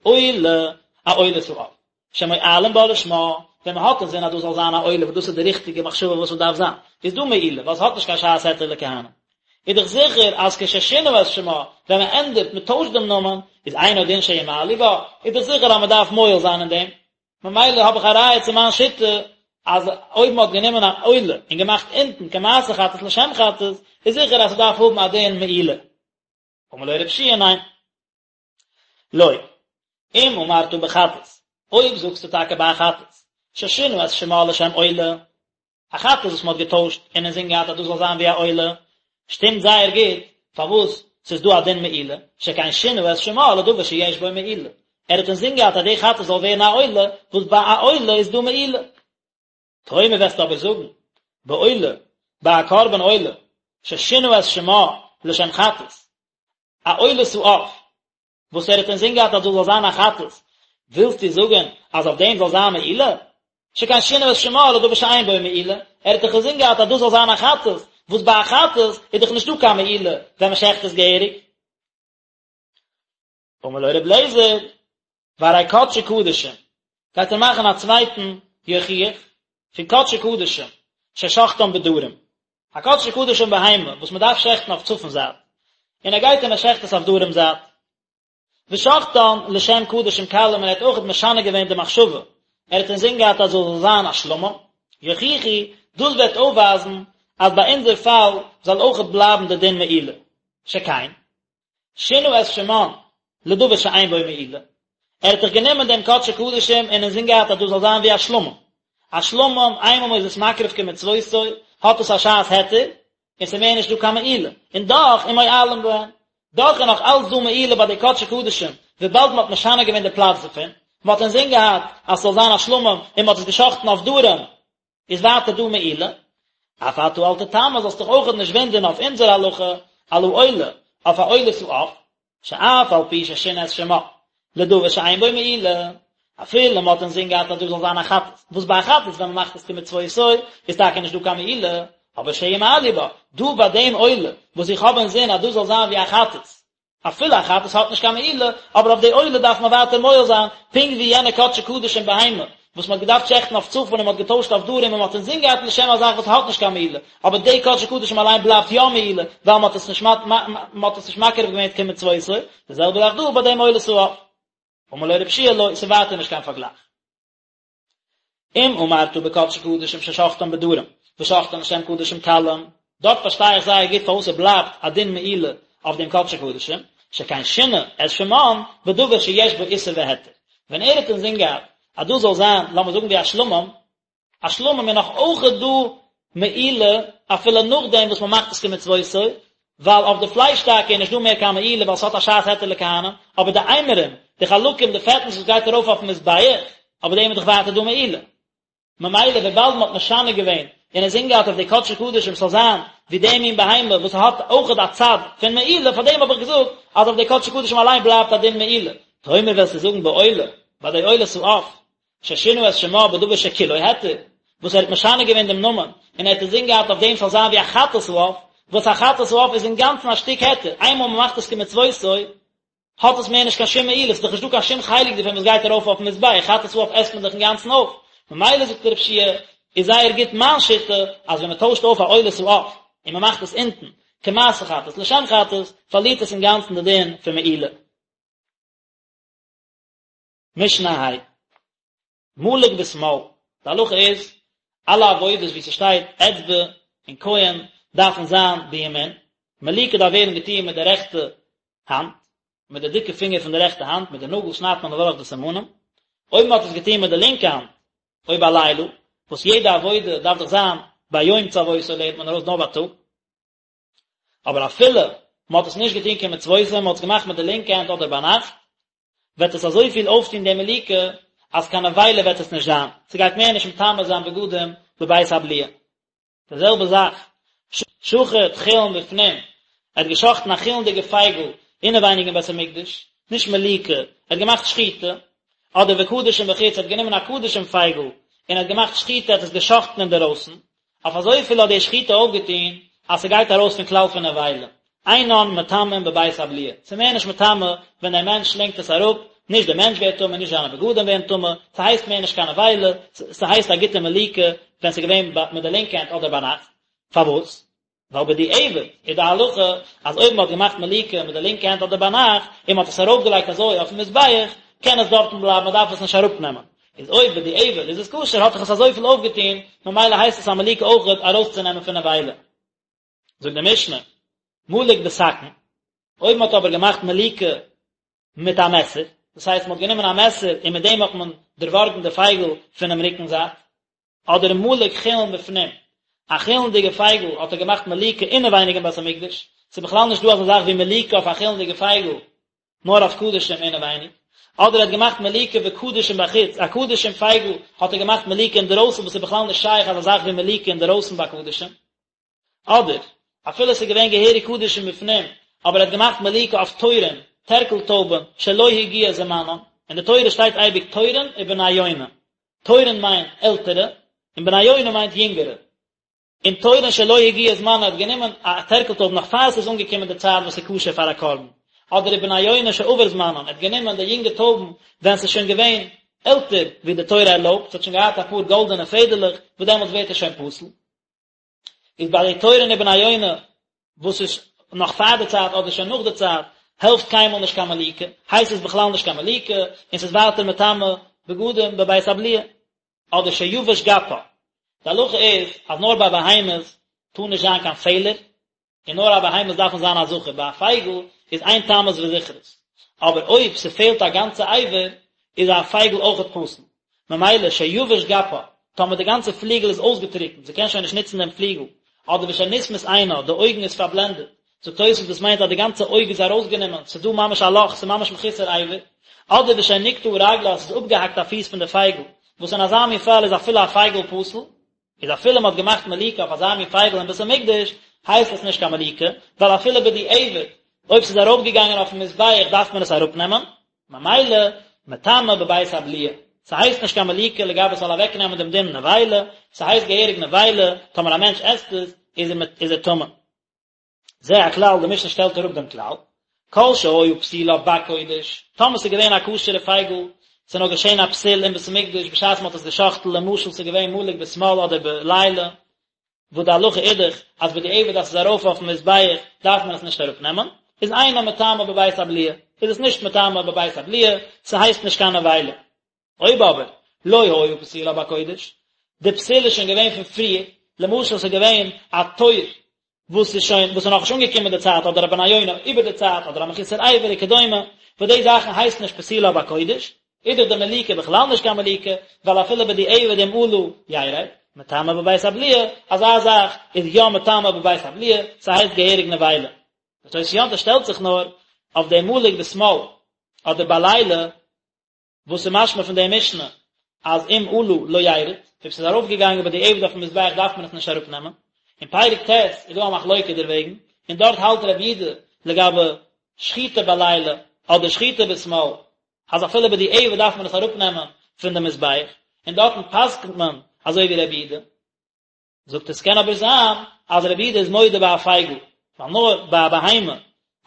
עולה, א עולת העוף, שמועלין בה לשמה, ווען מען האט אינזין אז דאס זאל זיין א עולה וואס דאס איז די ריכטיגע מחשבה וואס עס דארף זיין, איז דא מעילה, ווייל עס האט נישט קיין שעת היתר לכהנים. איז דאך זיכער אז כששינה את שמה, ווען מען ענדערט, מען טוישט דעם נאמען, איז אינו דין שימעלו בה, איז דאך זיכער אז מען דארף מועל זיין אין דעם. ממילא האב איך א ראיה צו מיין שיטה, אז אויב מען האט גענומען א עולה און געמאכט אונטן כמעשה חטאת לשם חטאת, איז זיכער אז ס'דארף האבן א דין מעילה. אמר לו רבי יהושע ניין. לא. אם אמרת בחטאת, אויב זאגסטו טאקע ביי א חטאת, ששינה את שמה לשם עולה, א חטאת וואס מען האט געטוישט און אינזין געהאט אז דאס זאל זיין ווי א עולה, שטימט זייער גוט פארוואס ס'איז דא א דין מעילה, שכן שינה את שמה לדבר שיש בו מעילה. ער האט אינזין געהאט אז די חטאת זאל ווערן א עולה, וואס ביי א עולה איז דא מעילה. תאמר וועסטו אבער זאגן, בעולה, ביי א קרבן עולה, ששינה את שמה לשם חטאת, א עולת העוף, וואס ער האט אינזין געהאט אז דאס זאל זיין א חטאת, ווילסטו זאגן אז אויף דעם זאל זיין מעילה? שכן שינה את שמה לדבר שאין בו מעילה, ער האט דאך אינזין געהאט אז דאס זאל זיין א חטאת, וואס ביי א חטאת איז דאך נישטא קיין מעילה ווען מען שעכט עס געהעריג. אמר לו ר' אליעזר, והרי קדשי קדשים, גייט ער מאכן א צווייטן יוכיח פון קדשי קדשים ששחטן בדרום, א קדשי קדשים בהמה וואס מען דארף שעכטן אויף צפון זייט, און ער גייט און ער שעכט עס אויף דרום זייט, ושחטן לשם קדשים קלים און ער האט אויכעט משנה געווען די מחשבה, ער האט אינזין געהאט אז עס זאל זיין א שלמים, יוכיחו, דאס וועט אויפווייזן אז ביי אונזער פאל זאל אויכעט בלייבן די דין מעילה, שכן, שינה את שמן לדבר שאין בו מעילה, ער האט דאך גענומען דעם קדשי קדשים און אינזין געהאט אז דאס זאל זיין ווי א שלמים, א שלמים איינמאל מ'איז עס מקריב כמצוותו האט עס א שעת היתר, און ס'איז מער נישט דא קיין מעילה, און דאך ומועלין בהן, דאך איז נאך אלץ דא מעילה ביי די קדשי קדשים, וויבאלד מ'האט משנה געווען די פלאץ דערפון, מ'האט אינזין געהאט אז ס'זאל זיין א שלמים און מ'האט עס געשחט'ן אויף דרום, איז ווייטער דא מעילה, אף אתה אל תתמה זאלסט דיך אויכעט נישט וואונדערן אויף אונזער הלכה על העולה, אויף א עולת העוף, שאף על פי ששינה את שמה, לדבר שאין בו מעילה, אפילו מ'האט אינזין געהאט אז דאס זאל זיין א חטאת, וואס ביי א חטאת ווען מ'מאכט עס כמצוותו איז טאקע נישט דא קיין מעילה, אבער שימעלו בה, דא ביי דעם עולה וואס איך האב אינזין אז דאס זאל זיין ווי א חטאת, אפילו א חטאת האט נישט קיין מעילה, אבער אויף די עולה דארף מען ווייטער מועל זיין, פונקט ווי יענע קדשי קדשים בהמה, וואס מען האט געדארפט שעכטן אויף צפון און מען האט געטוישט אויף דרום און מען האט אינזין געהאט לשם א זאך וואס האט נישט קיין מעילה, אבער די קדשי קדשים אליין בלייבט יא מעילה, ווייל מען האט עס נישט מען האט עס נישט מקריב געווען כמצוותו, די זעלבע זאך דא ביי דעם עולת העוף. אמר לו רבי יהושע לא, ס'איז ווייטער נישט קיין פארגלייך. אם אמרת בקדשי קדשים ששחטן בדרום, ושחטן לשם קדשים קלים, דארט פארשטיי איך זייער גוט פארוואס עס בלייבט א דין מעילה אויף דעם קדשי קדשים, שכן שינה את שמן בדבר שיש בו איסור והיתר. ווען ער האט אינזין געהאט אז דאס זאל זיין, לאמיר זאגן ווי א שלמים, א שלמים איז נאך אויכעט דא מעילה אפילו נאכדעם וואס מען מאכט עס כמצוותו, ווייל אויף די פלייש טאקע איז נישט דא מער קיין מעילה ווייל ס'האט א שעת היתר לכהנים, אבער די אימורים, די חלקים, די פעטנס וואס גייט ארויף אויפן מזבח, אויף דעם איז דאך ווייטער דא מעילה. ממילא וויבאלד מ'האט משנה געווען און אינזין געהאט אויף די קדשי קדשים ס'זאל זיין ווי די מין בהמה וואס האט אויכעט א צד פון מעילה, פאר דעם האב איך געזאגט אז אויף די קדשי קדשים אליין בלייבט א דין מעילה. תאמר וועסטו זאגן בעולה, ביי די עולת העוף, ששינה את שמה בדבר שכולו היתר, וואס ער האט משנה געווען דעם נאמען, און ער האט אינזין געהאט אויף דעם ס'זאל זיין ווי א חטאת העוף, וואס א חטאת העוף איז אינגאנצן א שטיק היתר, איינמאל מ'מאכט עס כמצוותו, האט עס מער נישט קיין שום מעילה, ס'איז דאך נישטא קיין שום חלק דערפון וואס גייט ארויף אויפן מזבח, חטאת העוף עסט מען דאך אינגאנצן אויף, ממילא זאגט רבי יהושע איז זייער גוט מיין שיטה, אז ווען מ'טוישט אויף א עולת העוף, און מ'מאכט עס אונטן, כמעשה חטאת לשם חטאת, פארלירט עס אינגאנצן די דין פון מעילה. משנה ה'. מלק בשמאל, די הלכה איז, אלע עבודות וואו ס'שטייט אצבע און כהן דארפן זיין בימין, מליקה דארף ווערן געטון מיט די רעכטע האנט, מיט די דיקע פינגער פון די רעכטע האנט, מיט די נאגל שניידט מען אדורך די סימנים, אויב מען האט עס געטון מיט די לינקע האנט, או בלילה, וואס יעדע עבודה דארף דאך זיין ביום צוותו לערנט מען ארויס נאר בייטאג. אבער אפילו מען האט עס נישט געטון כמצוותו, מען האט עס געמאכט מיט די לינקע הענט אדער ביינאכט, וועט עס אזויפיל אויפטון די מליקה, אז קיין נבילה וועט עס נישט זיין, ס'גייט מער נישט מטמא זיין בגדים בבית הבליעה. די זעלבע זאך, שחט חולין בפנים, ער האט געשחטן א חולין'דיגע פייגל אינעווייניג אין בית המקדש, נישט מליקה, ער האט געמאכט שחיטה, אדער וקדשים בחוץ, ער האט גענומען א קדשים פייגל און ער האט געמאכט שחיטה, ער האט עס געשחטן אינדערויסן, אויף אזויפיל האט די שחיטה אויפגעטון אז ס'גייט ארויס פון כלל פון נבילה, אינן מטמאין בבית הבליעה, ס'איז מער נישט מטמא ווען דער מענטש שלינגט עס אראפ, נישט דער מענטש ווערט טמא נישט זיינע בגדים ווערן טמא, ס'הייסט מער נישט קיין נבילה, ס'הייסט א גוטע מליקה ווען ס'איז געווען מיט די לינקע הענט אדער ביינאכט, פארוואס? ווייל בדיעבד איז די הלכה אז אויב מען האט געמאכט מליקה מיט די לינקע הענט אדער ביינאכט און מען האט עס ארויפגעלייגט אזוי אויפן מזבח, קען עס דארטן בלייבן מען דארף עס נישט אראפנעמען. איז אויב בדיעבד איז עס כשר האט דאך עס אזויפיל אויפגעטון, ממילא הייסט עס א מליקה אויכעט ארויסצונעמען פון נבילה. זאגט די משנה, מלק בסכין, אויב מען האט אבער געמאכט מליקה מיט א מעסער, דאס הייסט מען האט גענומען א מעסער און מיט דעם האט מען דערווארגן די פייגל פונעם רוקן זייט, אדער מלק חולין בפנים, א חולין'דיגע פייגל האט ער געמאכט מליקה אינעווייניג אין בית המקדש, ס'איז בכלל נישט דא אזא זאך ווי מליקה אויף א חולין'דיגע פייגל, נאר אויף קדשים אינעווייניג. אדער ער האט געמאכט מליקה בקדשים בחוץ, א קדשים פייגל האט ער געמאכט מליקה אינדערויסן וואס איז בכלל נישט שייך אזא זאך ווי מליקה אינדערויסן ביי קדשים. אדער, אפילו עס איז געווען געהעריג קדשים בפנים, אבער ער האט געמאכט מליקה אויף תורים, טערקל טויבן, שלא הגיע זמנם, אין די תורה שטייט אייביג תורין ובני יונה, תורין מיינט עלטערע, און בני יונה מיינט יונגערע. און תורין שלא הגיע זמנן האט גענומען א טערקל טויב נאך פאר עס איז אנגעקומען די צייט וואס איז כשר פאר א קרבן, אדער ובני יונה שעבר זמנן ער האט גענומען די יונגע טויבן ווען עס איז שוין געווען עלטער ווי די תורה ערלויבט, עס האט שוין געהאט אפאר גאלדענע פעדערלעך וואס דעמאלטס ווערט עס שוין פסול. איז ביי די תורין ובני יונה וואס איז נאך פאר די צייט אדער שוין נאך די צייט העלפט קיינמאל נישט קיין מליקה, הייסט עס בכלל נישט קיין מליקה און ס'איז ווייטער מטמא בגדים בבית הבליעה. אדער שיבש גפה. די הלכה איז אז נאר ביי בהמות טאר נישט זיין קיין פעלער, און נאר א בהמות דארפן זיין א זכר, ביי א פייגל איז אין תמות וזכרות, אבער אויב ס'פעלט א גאנצע אבר איז א פייגל אויכעט פסול, ממילא שיבש גפה, טאמער די גאנצע פליגל איז אויסגעטריקנט, זי קען שוין נישט נוצן דעם פליגל, אדער ושנסמית עינה, די אויגן איז פארבלענדעט, זאגט תוספות דאס מיינט אז די גאנצע אויג איז ארויסגענומען, ס'איז דא ממש א לאך, ס'איז ממש מחוסר אבר, אדער ושנקטעה רגלה, ס'איז אפגעהאקט א פיס פון די פייגל, וואס אין אזא מין פאל איז אפילו א פייגל פסול, איז אפילו מ'האט געמאכט מליקה אויף אזא מין פייגל אין בית המקדש, הייסט עס נישט קיין מליקה, ווייל אפילו בדיעבד, אויב ס'איז ארויפגעגאנגען אויפן מזבח דארף מען עס אראפנעמען, ממילא, מטמא בבית הבליעה. ס'הייסט נישט קיין מליקה לגבי ס'זאל אוועקנעמען דעם דין נבילה, ס'הייסט געהעריג נבילה, טאמער א מענטש עסט עס, איז ער טמא. זה הכלל, די משנה שטעלט אראפ דעם כלל, כל שהיה פסולה בקודש, טאמער ס'איז געווען א כשר'ע פייגל, ס'איז נאר געשען א פסול אין בית המקדש בשעת מ'האט עס גע'שחט'ן, למשל ס'איז געווען מלוק בשמאל אדער בלילה, וואס די הלכה איז דאך אז בדיעבד אז ס'איז ארויף אויפן מזבח דארף מען עס נישט אראפנעמען, איז אינה מטמאה בבית הבליעה, איז עס נישט מטמא בבית הבליעה, ס'הייסט נישט קיין נבילה. אויב אבער לא היה פסולה בקודש, די פסול איז שוין געווען פון פריער, למשל ס'איז געווען א תור וואס איז שוין וואס איז נאכנישט אנגעקומען די צייט אדער א בן יונה איבער די צייט אדער א מחוסר אבר וכדומה, וואס די זאכן הייסט נישט פסולה בקודש, איז דאך די מליקה בכלל נישט קיין מליקה, ווייל אפילו בדיעבד אם עלה ירד, מטמא בבית הבליעה, אזא זאך איז יא מטמא בבית הבליעה, ס'הייסט געהעריג נבילה. די תוס' יום טוב שטעלט זיך נאר אויף די מלוק בשמאל אדער בלילה, וואס איז משמע פון די משנה אז אם עלה לא ירד, אויב ס'איז ארויפגעגאנגען בדיעבד אויפן מזבח דארף מען עס נישט אראפנעמען, אין פרק ט' איז דא א מחלוקה דערוועגן, און דארט האלט רבי יהודה לגבי שחיטה בלילה אדער שחיטה בשמאל אז אפילו בדיעבד דארף מען עס אראפנעמען פון די מזבח, און דארטן פסק'נט מען אזוי ווי רבי יהודה. זאגט ער ס'קען אבער זיין אז רבי יהודה איז מודה ביי א פייגל, ווייל נאר ביי א בהמה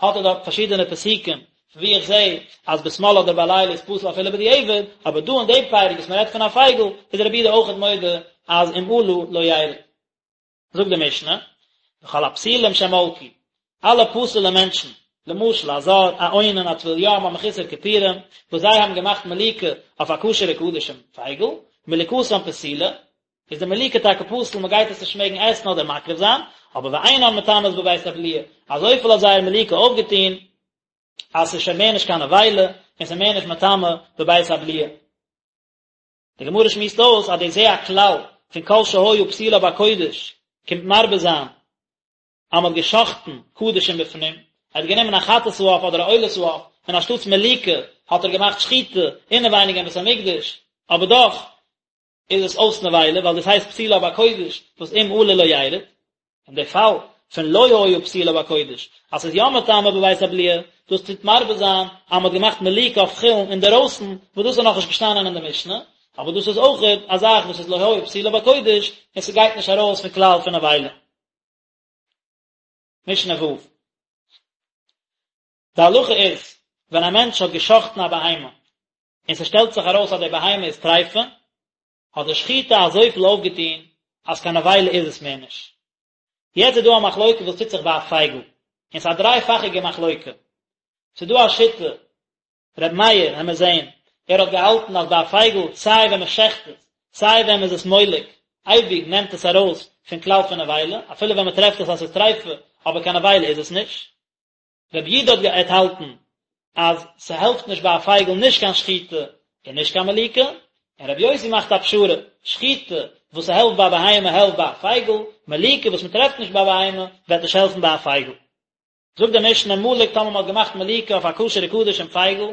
האט ער דארט פארשידענע פסוקים פון ווי איך זע אז בשמאל אדער בלילה איז פסול אפילו בדיעבד, אבער דא אין דעם פרק וואס מ'רעדט פון א פייגל איז רבי יהודה אויכעט מודה אז אם עלה לא ירד. זאגט די משנה, וכל הפסולים שמלקו, אלע פסול'ע מענטשן, למשל א זר, א אונן, א טבול יום, א מחוסר כיפורים, וואס זיי האבן געמאכט מליקה אויף א כשר'ע קדשים פייגל, מליקתן פסולה, איז די מליקה טאקע פסול, מען גייט עס נישט מעגן עסן אדער מקריב זיין, אבער ואינן מטמאות בבית הבליעה, אזויפיל האט זייער מליקה אויפגעטון, אז ס'איז שוין מער נישט קיין נבילה, און ס'איז מער נישט מטמא בבית הבליעה. די גמרא שמועסט אויס אז די זה הכלל פון כל שהיה פסולה בקודש קומט מרבה זיין אז מ'האט גע'שחט'ן קדשים בפנים, ער האט גענומען א חטאת העוף אדער א עולת העוף, און אנשטאטס מליקה האט ער געמאכט שחיטה אינעווייניג אין בית המקדש, אבער דאך איז עס אויס נבילה ווייל דאס הייסט פסולה בקודש וואס אם עלה לא ירד, און די פאל פון לא היה פסולה בקודש אז ס'איז יא מטמא בבית הבליעה, דאס טוט מרבה זיין אז מ'האט געמאכט מליקה אויף חולין אינדערויסן, וואס דאס איז נאכנישט געשטאנען אין די משנה, אבער דאס איז אויכעט א זאך וואס איז לא היה פסולה בקודש און ס'גייט נישט ארויס פון כלל פון נבילה. משנה ו'. די הלכה איז, ווען א מענטש האט גע'שחט'ן א בהמה, און ס'שטעלט זיך ארויס אז די בהמה איז טריפה, האט די שחיטה אזויפיל אויפגעטון אז קיין נבילה איז עס מער נישט. יעצט איז דא א מחלוקה וואס טוט זיך ביי א פייגל, און ס'איז א דרייפאכיגע מחלוקה. ס'איז דא א שיטה, ר' מאיר, העמיר זעהן, ער האט געהאלטן אז ביי א פייגל סיי ווען מ'שעכט עס, סיי ווען מ'איז עס מולק, אייביג נעמט עס ארויס פון כלל פון נבילה, אפילו ווען מ'טרעפט עס אז ס'איז טריפה, אבער קיין נבילה איז עס נישט. רבי יהודה האט געהאלטן אז ס'העלפט נישט ביי א פייגל נישט קיין שחיטה און נישט קיין מליקה, און רבי יוסי מאכט א פשרה, שחיטה וואס ס'העלפט ביי א בהמה העלפט ביי א פייגל, מליקה וואס מ'טרעפט נישט ביי א בהמה וועט נישט העלפן ביי א פייגל. זאגט די משנה מלק טאמער מ'האט געמאכט מליקה אויף א כשר'ע קדשים פייגל,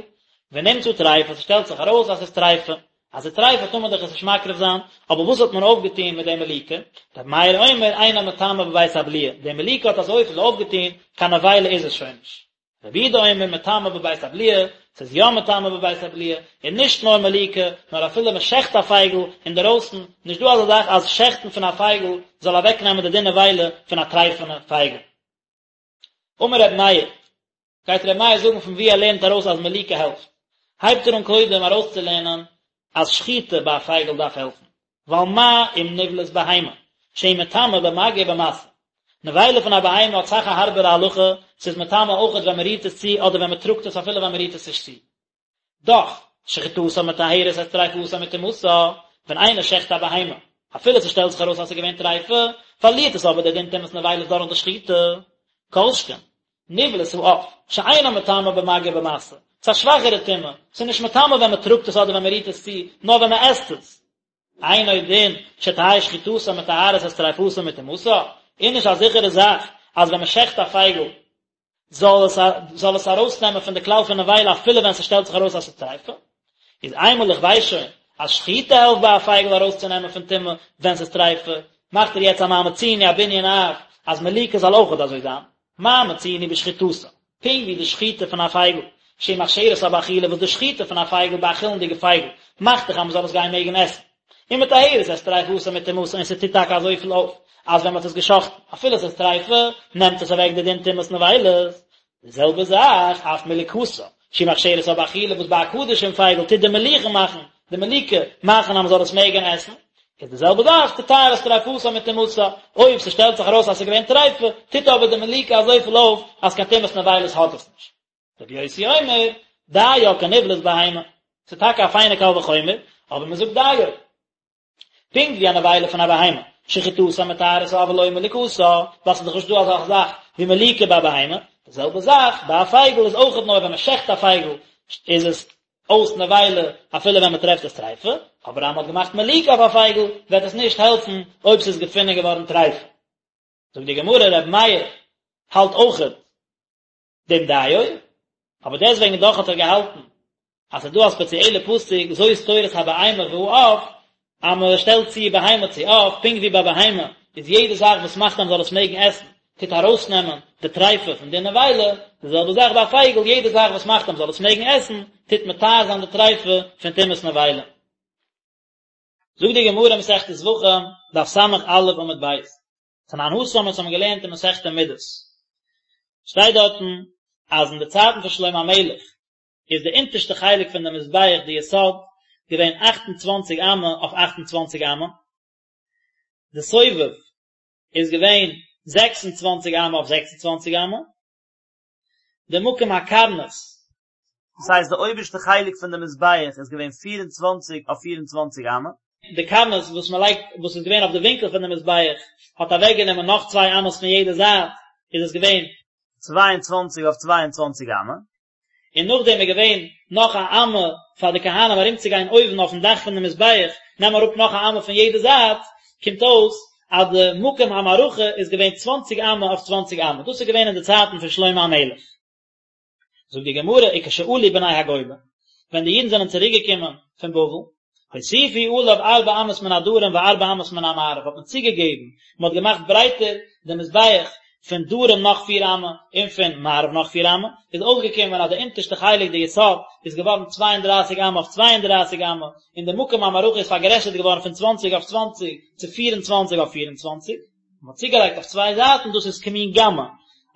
ונמצא טריפה, ס'שטעלט זיך ארויס אז ס'איז טריפה. אז ס'איז טריפה טאר מען דאך עס נישט מקריב זיין, אבער וואס האט מען אויפגעטון מיט די מליקה? רבי מאיר אומר אינה מטמאה בבית הבליעה, די מליקה האט אזויפיל אויפגעטון, קיין נבילה איז עס שוין נישט. רבי יהודה אומר מטמאה בבית הבליעה, ס'איז יא מטמא בבית הבליעה, און נישט נאר מליקה, נאר אפילו מען שעכט א פייגל אינדערויסן, נישט דא אזא זאך אז שעכטן פון א פייגל זאל אוועקנעמען די דין נבילה פון א טרייפענע פייגל. אמר רבי מאיר, גייט רבי מאיר זאגן פון וואו ער לערנט ארויס אז מליקה העלפט, הייבט ער אן קודם ארויסצולערנען אז שחיטה ביי א פייגל דארף העלפן, ווייל מה אם נבלת בהמה, שהיא מטמאה במגע ובמשא. נבילה פון א בהמה האט אסאך א הארבערע הלכה, ס'איז מטמא אויכעט ווען מ'רירט עס צו אדער ווען מ'טראגט עס אפילו ווען מ'רירט עס נישט צו. דאך, שחיטתה מטהרת את טריפתה מטומאתה, ווען איינער שעכט א בהמה, אפילו ס'שטעלט זיך ארויס אז ס'איז געווען טריפה, פארלירט עס אבער די דין טומאת נבילות דורך די שחיטה. כל שכן, נבלת העוף, שאינה מטמאה במגע ובמשא, ס'איז א שוואכערע טומאה, ס'איז נישט מטמא ווען מ'טראגט עס אדער ווען מ'רירט עס צו, נאר ווען מ'עסט עס. אינו דין שתהא שחיטתה מטהרת את טריפתה מטומאתה, איז נישט א זיכערע זאך אז ווען מ'שעכט א פייגל זאל עס זאל עס ארויסנעמען פון די כלל פון נבילה אפילו ווען ס'שטעלט זיך ארויס אז ס'איז טריפה. איז איינמאל איך ווייס שוין אז שחיטה העלפט ביי א פייגל ארויסצונעמען פון טומאה ווען ס'איז טריפה, מאכט ער יעצט א מה מצינו א בנין אב אז מליקה זאל אויכעט אזוי זיין. מה מצינו בשחיטתה, פונקט ווי די שחיטה פון א פייגל, שהיא מכשירתה באכילה וואס די שחיטה פון א פייגל ביי א חולין'דיגע פייגל מאכט דאך אז מ'זאל עס גיין מעגן עסן, ומטהרת את טריפתה מטומאתה און ס'טוט טאקע אזויפיל אויף אז ווען מ'האט עס גע'שחט'ן אפילו ס'איז טריפה נעמט עס אוועק די דין טומאת נבילות, די זעלבע זאך אף מליקתה שהיא מכשירתה באכילה וואס ביי א קדשים פייגל טוט די מליחה מאכן די מליקה מאכן אז מ'זאל עס מעגן עסן, איז די זעלבע זאך תטהר את טריפתה מטומאתה, אויב ס'שטעלט זיך ארויס אז ס'איז געווען טריפה טוט אבער די מליקה אזויפיל אויף אז קיין טומאת נבילות האט עס נישט. רבי יוסי אומר, דיה כנבלת בהמה, ס'איז טאקע א פיינע קל וחומר, אבער מ'זאגט דיו. פונקט ווי א נבילה פון א בהמה, שחיטתה מטהרתה אבל לא מליקתה, ווייל ס'איז דאך נישט דא אזא זאך ווי מליקה ביי א בהמה, די זעלבע זאך ביי א פייגל איז אויכעט נאר ווען מ'שעכט א פייגל איז עס אויס נבילה אפילו ווען מ'טרעפט עס טריפה, אבער אז מ'האט געמאכט מליקה אויף א פייגל וועט עס נישט העלפן אויב ס'איז געפונען געווארן טריפה. זאגט די גמרא ר' מאיר האלט אויכעט דעם דיו, אבער דעסוועגן דאך האט ער געהאלטן אז ס'איז דא א ספעציעלע פסוק זאת תורת הבהמה והעוף, אז מען שטעלט צו בהמה צו עוף, פונקט ווי ביי בהמה איז יעדע זאך וואס מאכט אז מען זאל עס מעגן עסן, טוט ארויסנעמען די טריפה פון די נבילה, די זעלבע זאך ביי א פייגל, יעדע זאך וואס מאכט אז מען זאל עס מעגן עסן, טוט מטהר זיין די טריפה פון טומאת נבילה. זאגט די גמרא מסכת זבחים, דף ס"א עמוד ב', תנן התם אונז האבן געלערנט אין מסכת מידות, שטייט דארטן אז אין די צייטן פון שלמה המלך איז די אונטערשטע חלק פון די מזבח די יסוד געווען אכט און צוואנציג אמה אויף אכט און צוואנציג אמה, די סובב איז געווען 26 אמה אויף 26 אמה, די מקום הקרנית, דאס הייסט די אויבערשטע חלק פון די מזבח איז געווען 24 אויף 24 אמה, די קרנית וואס מען לייגט וואס איז געווען אויף די ווינקל פון די מזבח האט אוועק גענומען נאך צוויי אמות פון יעדע זייט, איז עס געווען 22 אויף 22 אמה, און נאכדעם איז געווען נאך א אמה פאר די כהנים ארומצוגיין אויבן אויפן דאך פון די מזבח, נעם אראפ נאך א אמה פון יעדע זייט, קומט אויס אז די מקום המערכה איז געווען צוואנציג אמה אויף צוואנציג אמה, דאס איז געווען אין די צייטן פון שלמה המלך. זאגט די גמרא, וכשעלו בני הגולה, ווען די אידן זענען צוריק געקומען פון בבל, הוסיפו עליו ארבע אמות מן הדרום וארבע אמות מן המערב, האט מען צוגעגעבן, מען האט געמאכט ברייטער די מזבח פון דרום נאך פיר אמה און פון מערב נאך פיר אמה, איז אויסגעקומען אז די אונטערשטע חלק די יסוד איז געווארן צוויי און דרייסיג אמה אויף צוויי און דרייסיג אמה, און די מקום המערכה איז פארגרעסערט געווארן פון צוואנציג אויף צוואנציג צו פיר און צוואנציג אויף פיר און צוואנציג. מען האט צוגעלייגט אויף צוויי זייטן דאס איז כמין גמא,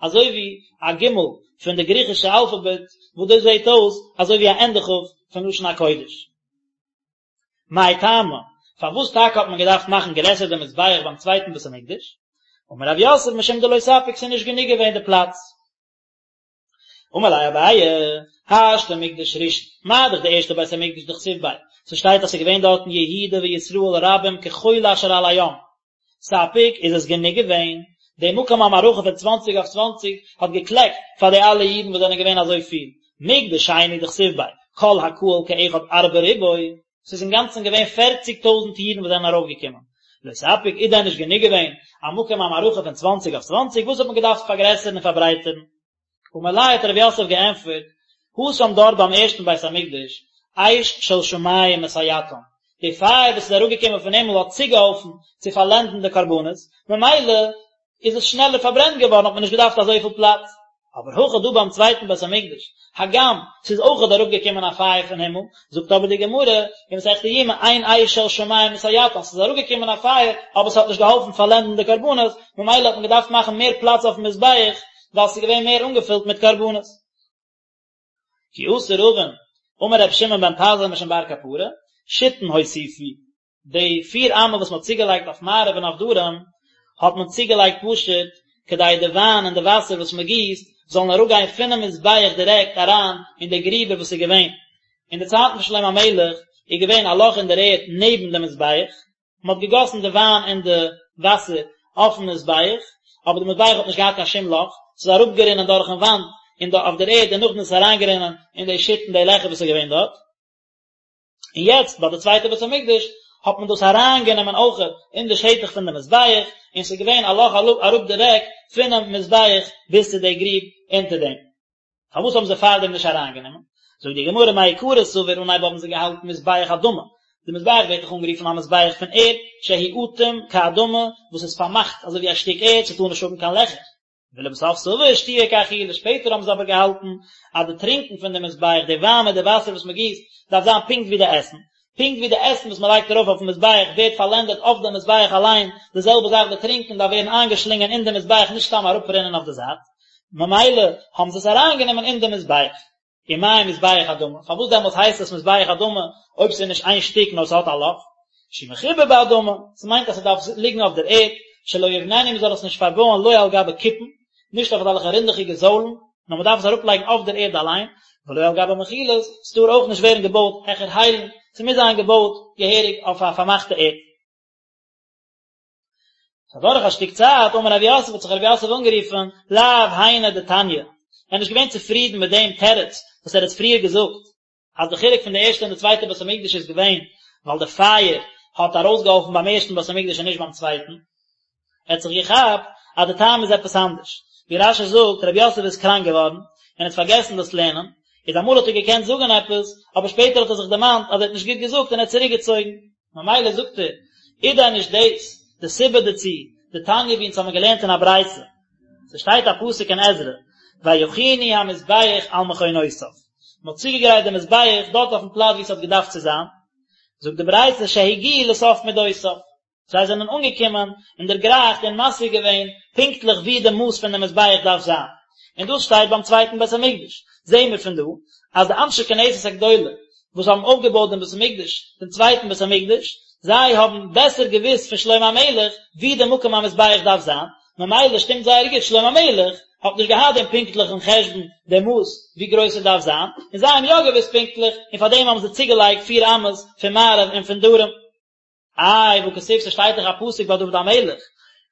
אזוי ווי א גימל פון די גריכישע אלפאבעט, וואס דאס זעט אויס אזוי ווי א ענדע כף פון לשון הקודש. מאי טעמא, פארוואס טאקע האט מען געדארפט מאכן גרעסער די מזבח ביים צווייטן בית המקדש? אמר רב יוסף משום דלא ספיק ס'איז נישט גענוג געווען די פלאץ. אמר ליה אביי, השתא מקדש ראשון, מה דאך די ערשטע בית המקדש דכתיב ביה, ס'שטייט אז ס'איז געווען דארטן יהודה וישראל רבים כחול אשר על הים, ספיק איז עס גענוג געווען, די מקום המערכה פון צוואנציג אויף צוואנציג האט געקלעקט פאר די אלע אידן וואס זענען געווען אזוי פיל, מקדש שני דכתיב ביה, כל הקהל כאחד ארבע ריבוא, ס'איז אינגאנצן געווען פערציג טויזנט אידן וואס זענען ארויפגעקומען, לא ספיק איז דען נישט גענוג געווען א מקום המערכה פון צוואנציג אויף צוואנציג, וואס האט מען געדארפט פארגרעסערן און פארברייטערן? אמר ליה האט רב יוסף געענטפערט, התם דארט ביים ערשטן בית המקדש, אש של שמים מסייעתן, די פייער וואס איז אראפגעקומען פון הימל האט צוגעהאלפן צו פארלענדן די קרבנות, ממילא איז עס שנעלער פארברענט געווארן האט מען נישט געדארפט אזויפיל פלאץ. אבער הכא דא ביים צווייטן בית המקדש, הגם ס'איז אויכעט אראפגעקומען א פייער פון הימל, זאגט אבער די גמרא אין מסכת יומא אין אש של שמים מסייעתן, ס'איז אראפגעקומען א פייער אבער ס'האט נישט געהאלפן פארלענדן די קרבנות, ממילא האט מען געדארפט מאכן מער פלאץ אויפן מזבח ווייל ס'איז געווען מער אנגעפילט מיט קרבנות. כי אתא רבין, אמר רבי שמעון בן פזי משום בר קפרא, שיתין הוסיפו, די פיר אמה וואס מען האט צוגעלייגט אויף מערב און אויף דרום, האט מען צוגעלייגט פשוט כדי די וויין און די וואסער וואס מען גיסט זאלן אראפגיין פונעם מזבח דירעקט אריין אין די גריבער וואס איז געווען. אין די צייטן פון שלמה המלך איז געווען א לאך אין דער ערד נעבן דעם מזבח, מען האט געגאסן די וויין און די וואסער אויפן מזבח, אבער די מזבח האט נישט געהאט קיין שום לאך, ס'איז אראפגערינען דורכן וואנט און אויף דער ערד און נאכדעם איז עס אריינגערינען אין די שיתין די לעכער וואס איז געווען דארט. און יעצט ביי די צווייטע בית המקדש האט מען דאס אריינגענומען אויכעט אין די שטח פון די מזבח, און ס'איז געווען א לאך אראפ דירעקט פונעם מזבח ביז צו די גריב אונטער דעם. פארוואס האבן זיי פארדעם נישט אריינגענומען? זאגט די גמרא מעיקרא סבור אנהייב האבן זיי געהאלטן מזבח אדמה, די מזבח ווערט דאך אנגערופן א מזבח פון ערד, שהוא אטום כאדמה, וואס איז פארמאכט אזוי ווי א שטיק ערד, ס'טאר נישט האבן קיין לעכער. ולבסוף סבור שתיה כאכילה, שפעטער האבן זיי אבער געהאלטן אז די טרינקען פון די מזבח, די וויין מיט די וואסער וואס מען גיסט, דארף זיין פונקט ווי די עסן. פונקט ווי די עסן וואס מען לייגט ארויף אויפן מזבח ווערט פארלענדעט אויף די מזבח אליין, די זעלבע זאך די טרינקען דארף ווערן איינגעשלינגען אין די מזבח נישט סתם אראפרינען אויף די זייט. ממילא האבן זיי עס אריינגענומען אין די מזבח. ומאי מזבח אדמה, פארוואס דעמאלטס הייסט עס מזבח אדמה אויב ס'איז נישט איין שטיק נאר ס'האט א לאך? שהוא מחובר באדמה, ס'מיינט אז ס'דארף ליגן אויף דער ערד, שלא יבננו מ'זאל עס נישט פארבויען לא על גבי כיפין, נישט אויף אזעלכע רינדעכיגע זוילן, נאר מ'דארף עס אראפלייגן אויף דער ערד אליין, ולא על גבי מחילות, ס'טאר אויך נישט ווערן געבויט העכער היילן, ס'מוז זיין געבויט געהעריג אויף א פארמאכטע ערד. אדורך א שטיק צייט, אמר רב יוסף האט זיך רב יוסף אנגערופן, לאו היינו דתניא, ער איז נישט געווען צופרידן מיט דעם תירוץ וואס ער האט פריער געזאגט, אז די חילוק פון די ערשטע און די צווייטע בית המקדש איז געווען ווייל די פייער האט ארויסגעהאלפן ביים ערשטן בית המקדש און נישט ביים צווייטן. ער האט זיך געכאפט אז די טעם איז עפעס אנדערש. ווי רש"י זאגט, רב יוסף איז קראנק געווארן און האט פארגעסן דאס לערנען, איז אמאל האט ער געקענט זאגן עפעס, אבער שפעטער האט ער זיך דערמאנט אז ער האט נישט גוט געזאגט און ער האט צוריקגעצויגן. ממילא זאגט ער, איז דען נישט דאס די סיבה דערצו, דתניא ווי אונז האבן געלערנט אין א ברייתא, ס'שטייט א פסוק אין עזרא, ויכינו המזבח על מכונותיו, מ'האט צוגעגרייט די מזבח דארט אויפן פלאץ ווי ס'האט געדארפט צו זיין, זאגט די ברייתא שהגיעו לסוף מדותיו, זיי זענען אנגעקומען און דערגרייכט און משיג געווען פונקטליך ווי די מאס פון די מזבח דארף זיין, און דאס שטייט ביים צווייטן בית המקדש, זעהן מיר פון דא אז די אנשי כנסת הגדולה וואס האבן אויפגעבויט דעם בית המקדש, דעם צווייטן בית המקדש, זיי האבן בעסער געוואוסט פון שלמה המלך ווי די מקום המזבח דארף זיין, ממילא שטימט זייער גוט, שלמה המלך האט נישט געהאט דעם פונקטליכן חשבון, די מאס ווי גרויס עס דארף זיין, און זיי האבן יא געוואוסט פונקטליך, און פארדעם האבן זיי צוגעלייגט פיר אמות פון מערב און פון דרום. איי, והכתיב, ס'שטייט דאך א פסוק ביי דוד המלך,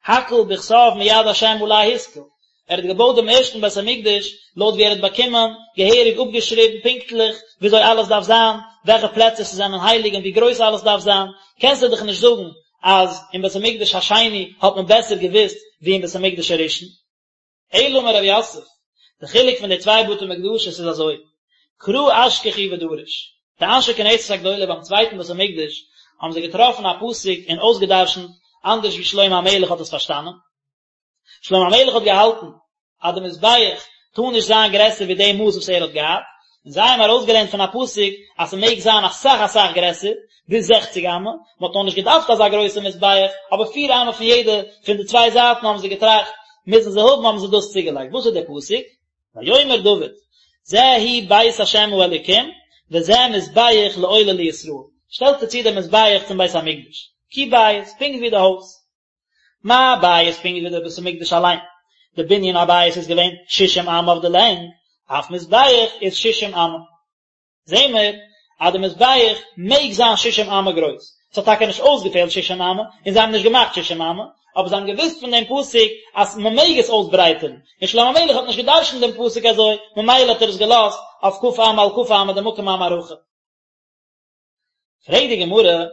הכל בכתב מיד השם עלי השכיל, ער האט געבויט דעם ערשטן בית המקדש לויט ווי ער האט באקומען, געהעריג אפגעשריבן פונקטליך וויאזוי אלעס דארף זיין, וועלכע פלעצער ס'זענען הייליג און ווי גרויס אלעס דארף זיין, קענסטו דאך נישט זאגן אז אין בית המקדש השני האט מען בעסער געוואוסט ווי אין בית המקדש הראשון. אלא אמר רב יוסף, די חילוק פון די צוויי בתי מקדשות איז אזוי, קרא אשכחו ודרש, די אנשי כנסת הגדולה ביים צווייטן בית המקדש האבן זיי געטראפן א פסוק און אויסגעדרשנט אנדערש ווי שלמה המלך האט עס פארשטאנען. שלמה המלך האט געהאלטן אז די מזבח טאר נישט זיין גרעסער ווי די מאס וואס ער האט געהאט, און זיי האבן ארויסגעלערנט פון א פסוק אז ס'מעג זיין אסאך אסאך גרעסער, ביז זעכציג אמה, מ'האט נאר נישט געדארפט אזא גרויסע מזבח, אבער פיר אמה פון יעדע פון די צוויי זייטן האבן זיי געטראכט מוזן זיי האבן האבן זיי דאס צוגעלייגט, וואס איז דער פסוק? ויאמר דוד, זה הוא בית השם האלוקים, וזה מזבח לעולה לישראל, שטעלט ער צו דעם מזבח צום בית המקדש, כי בית, פונקט ווי די הויז. מה בית פונקט ווי דער בית המקדש אליין, די בנין הבית איז געווען שישים אמה אויף די לענג, אף מזבח איז שישים אמה. זעהן מיר אז די מזבח מעג זיין שישים אמה גרויס, ס'האט טאקע נישט אויסגעפעלט שישים אמה, און זיי האבן נישט געמאכט שישים אמה, אבער זיי האבן געוואוסט פון דעם פסוק אז מ'מעג עס אויסברייטערן, און שלמה המלך האט נישט גע'דרש'נט דעם פסוק אזוי, ממילא האט ער עס געלאזט אויף כ' אמה על כ' אמה די מקום המערכה. פרעגט די גמרא,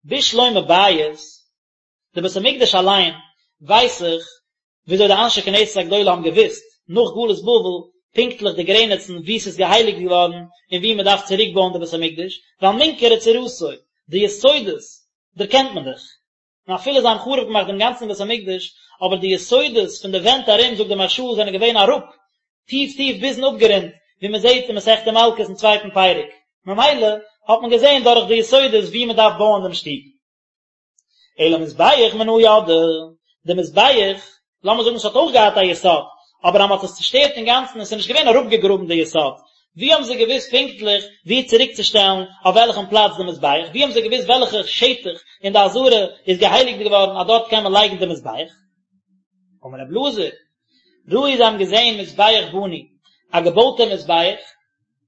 בשלמא בית, די בית המקדש אליין ווייס איך וויאזוי די אנשי כנסת הגדולה האבן געוואוסט נאך גלות בבל. פונקטליך די גרעניצן וואו ס'איז געהייליגט געווארן און וואו מ'דארף צוריק בויען די בית המקדש, ווייל מינכרא צורתו, די יסודות דערקענט מען דאך. און אפילו זיי האבן חרוב געמאכט דעם גאנצן בית המקדש, אבער די יסודות פון די ווענט ארום, זאגט די מהרש"א, זענען געווען אראפ, טיף טיף ביזן אפגרונט, ווי מען זעט אין מסכת מלקות אין צווייטן פרק. ממילא האט מען געזען דורך די יסודות וואו מען דארף בויען דעם שטוב. אלא מזבח מנא ידעי, די מזבח, לאמיר זאגן עס האט אויך געהאט א יסוד, אבער אז מען האט עס צושטערט אינגאנצן און עס איז נישט געווען אראפגעגראבן די יסוד, ווי האבן זיי געוואוסט פונקטליך וואו צוריקצושטעלן אויף וועלכן פלאץ די מזבח? ווי האבן זיי געוואוסט וועלכע שטח אין די עזרה איז געהייליגט געווארן אז דארט קען מען לייגן די מזבח? אמר רב אלעזר, ראו זיי האבן געזען מזבח בנוי, א געבויטע מזבח,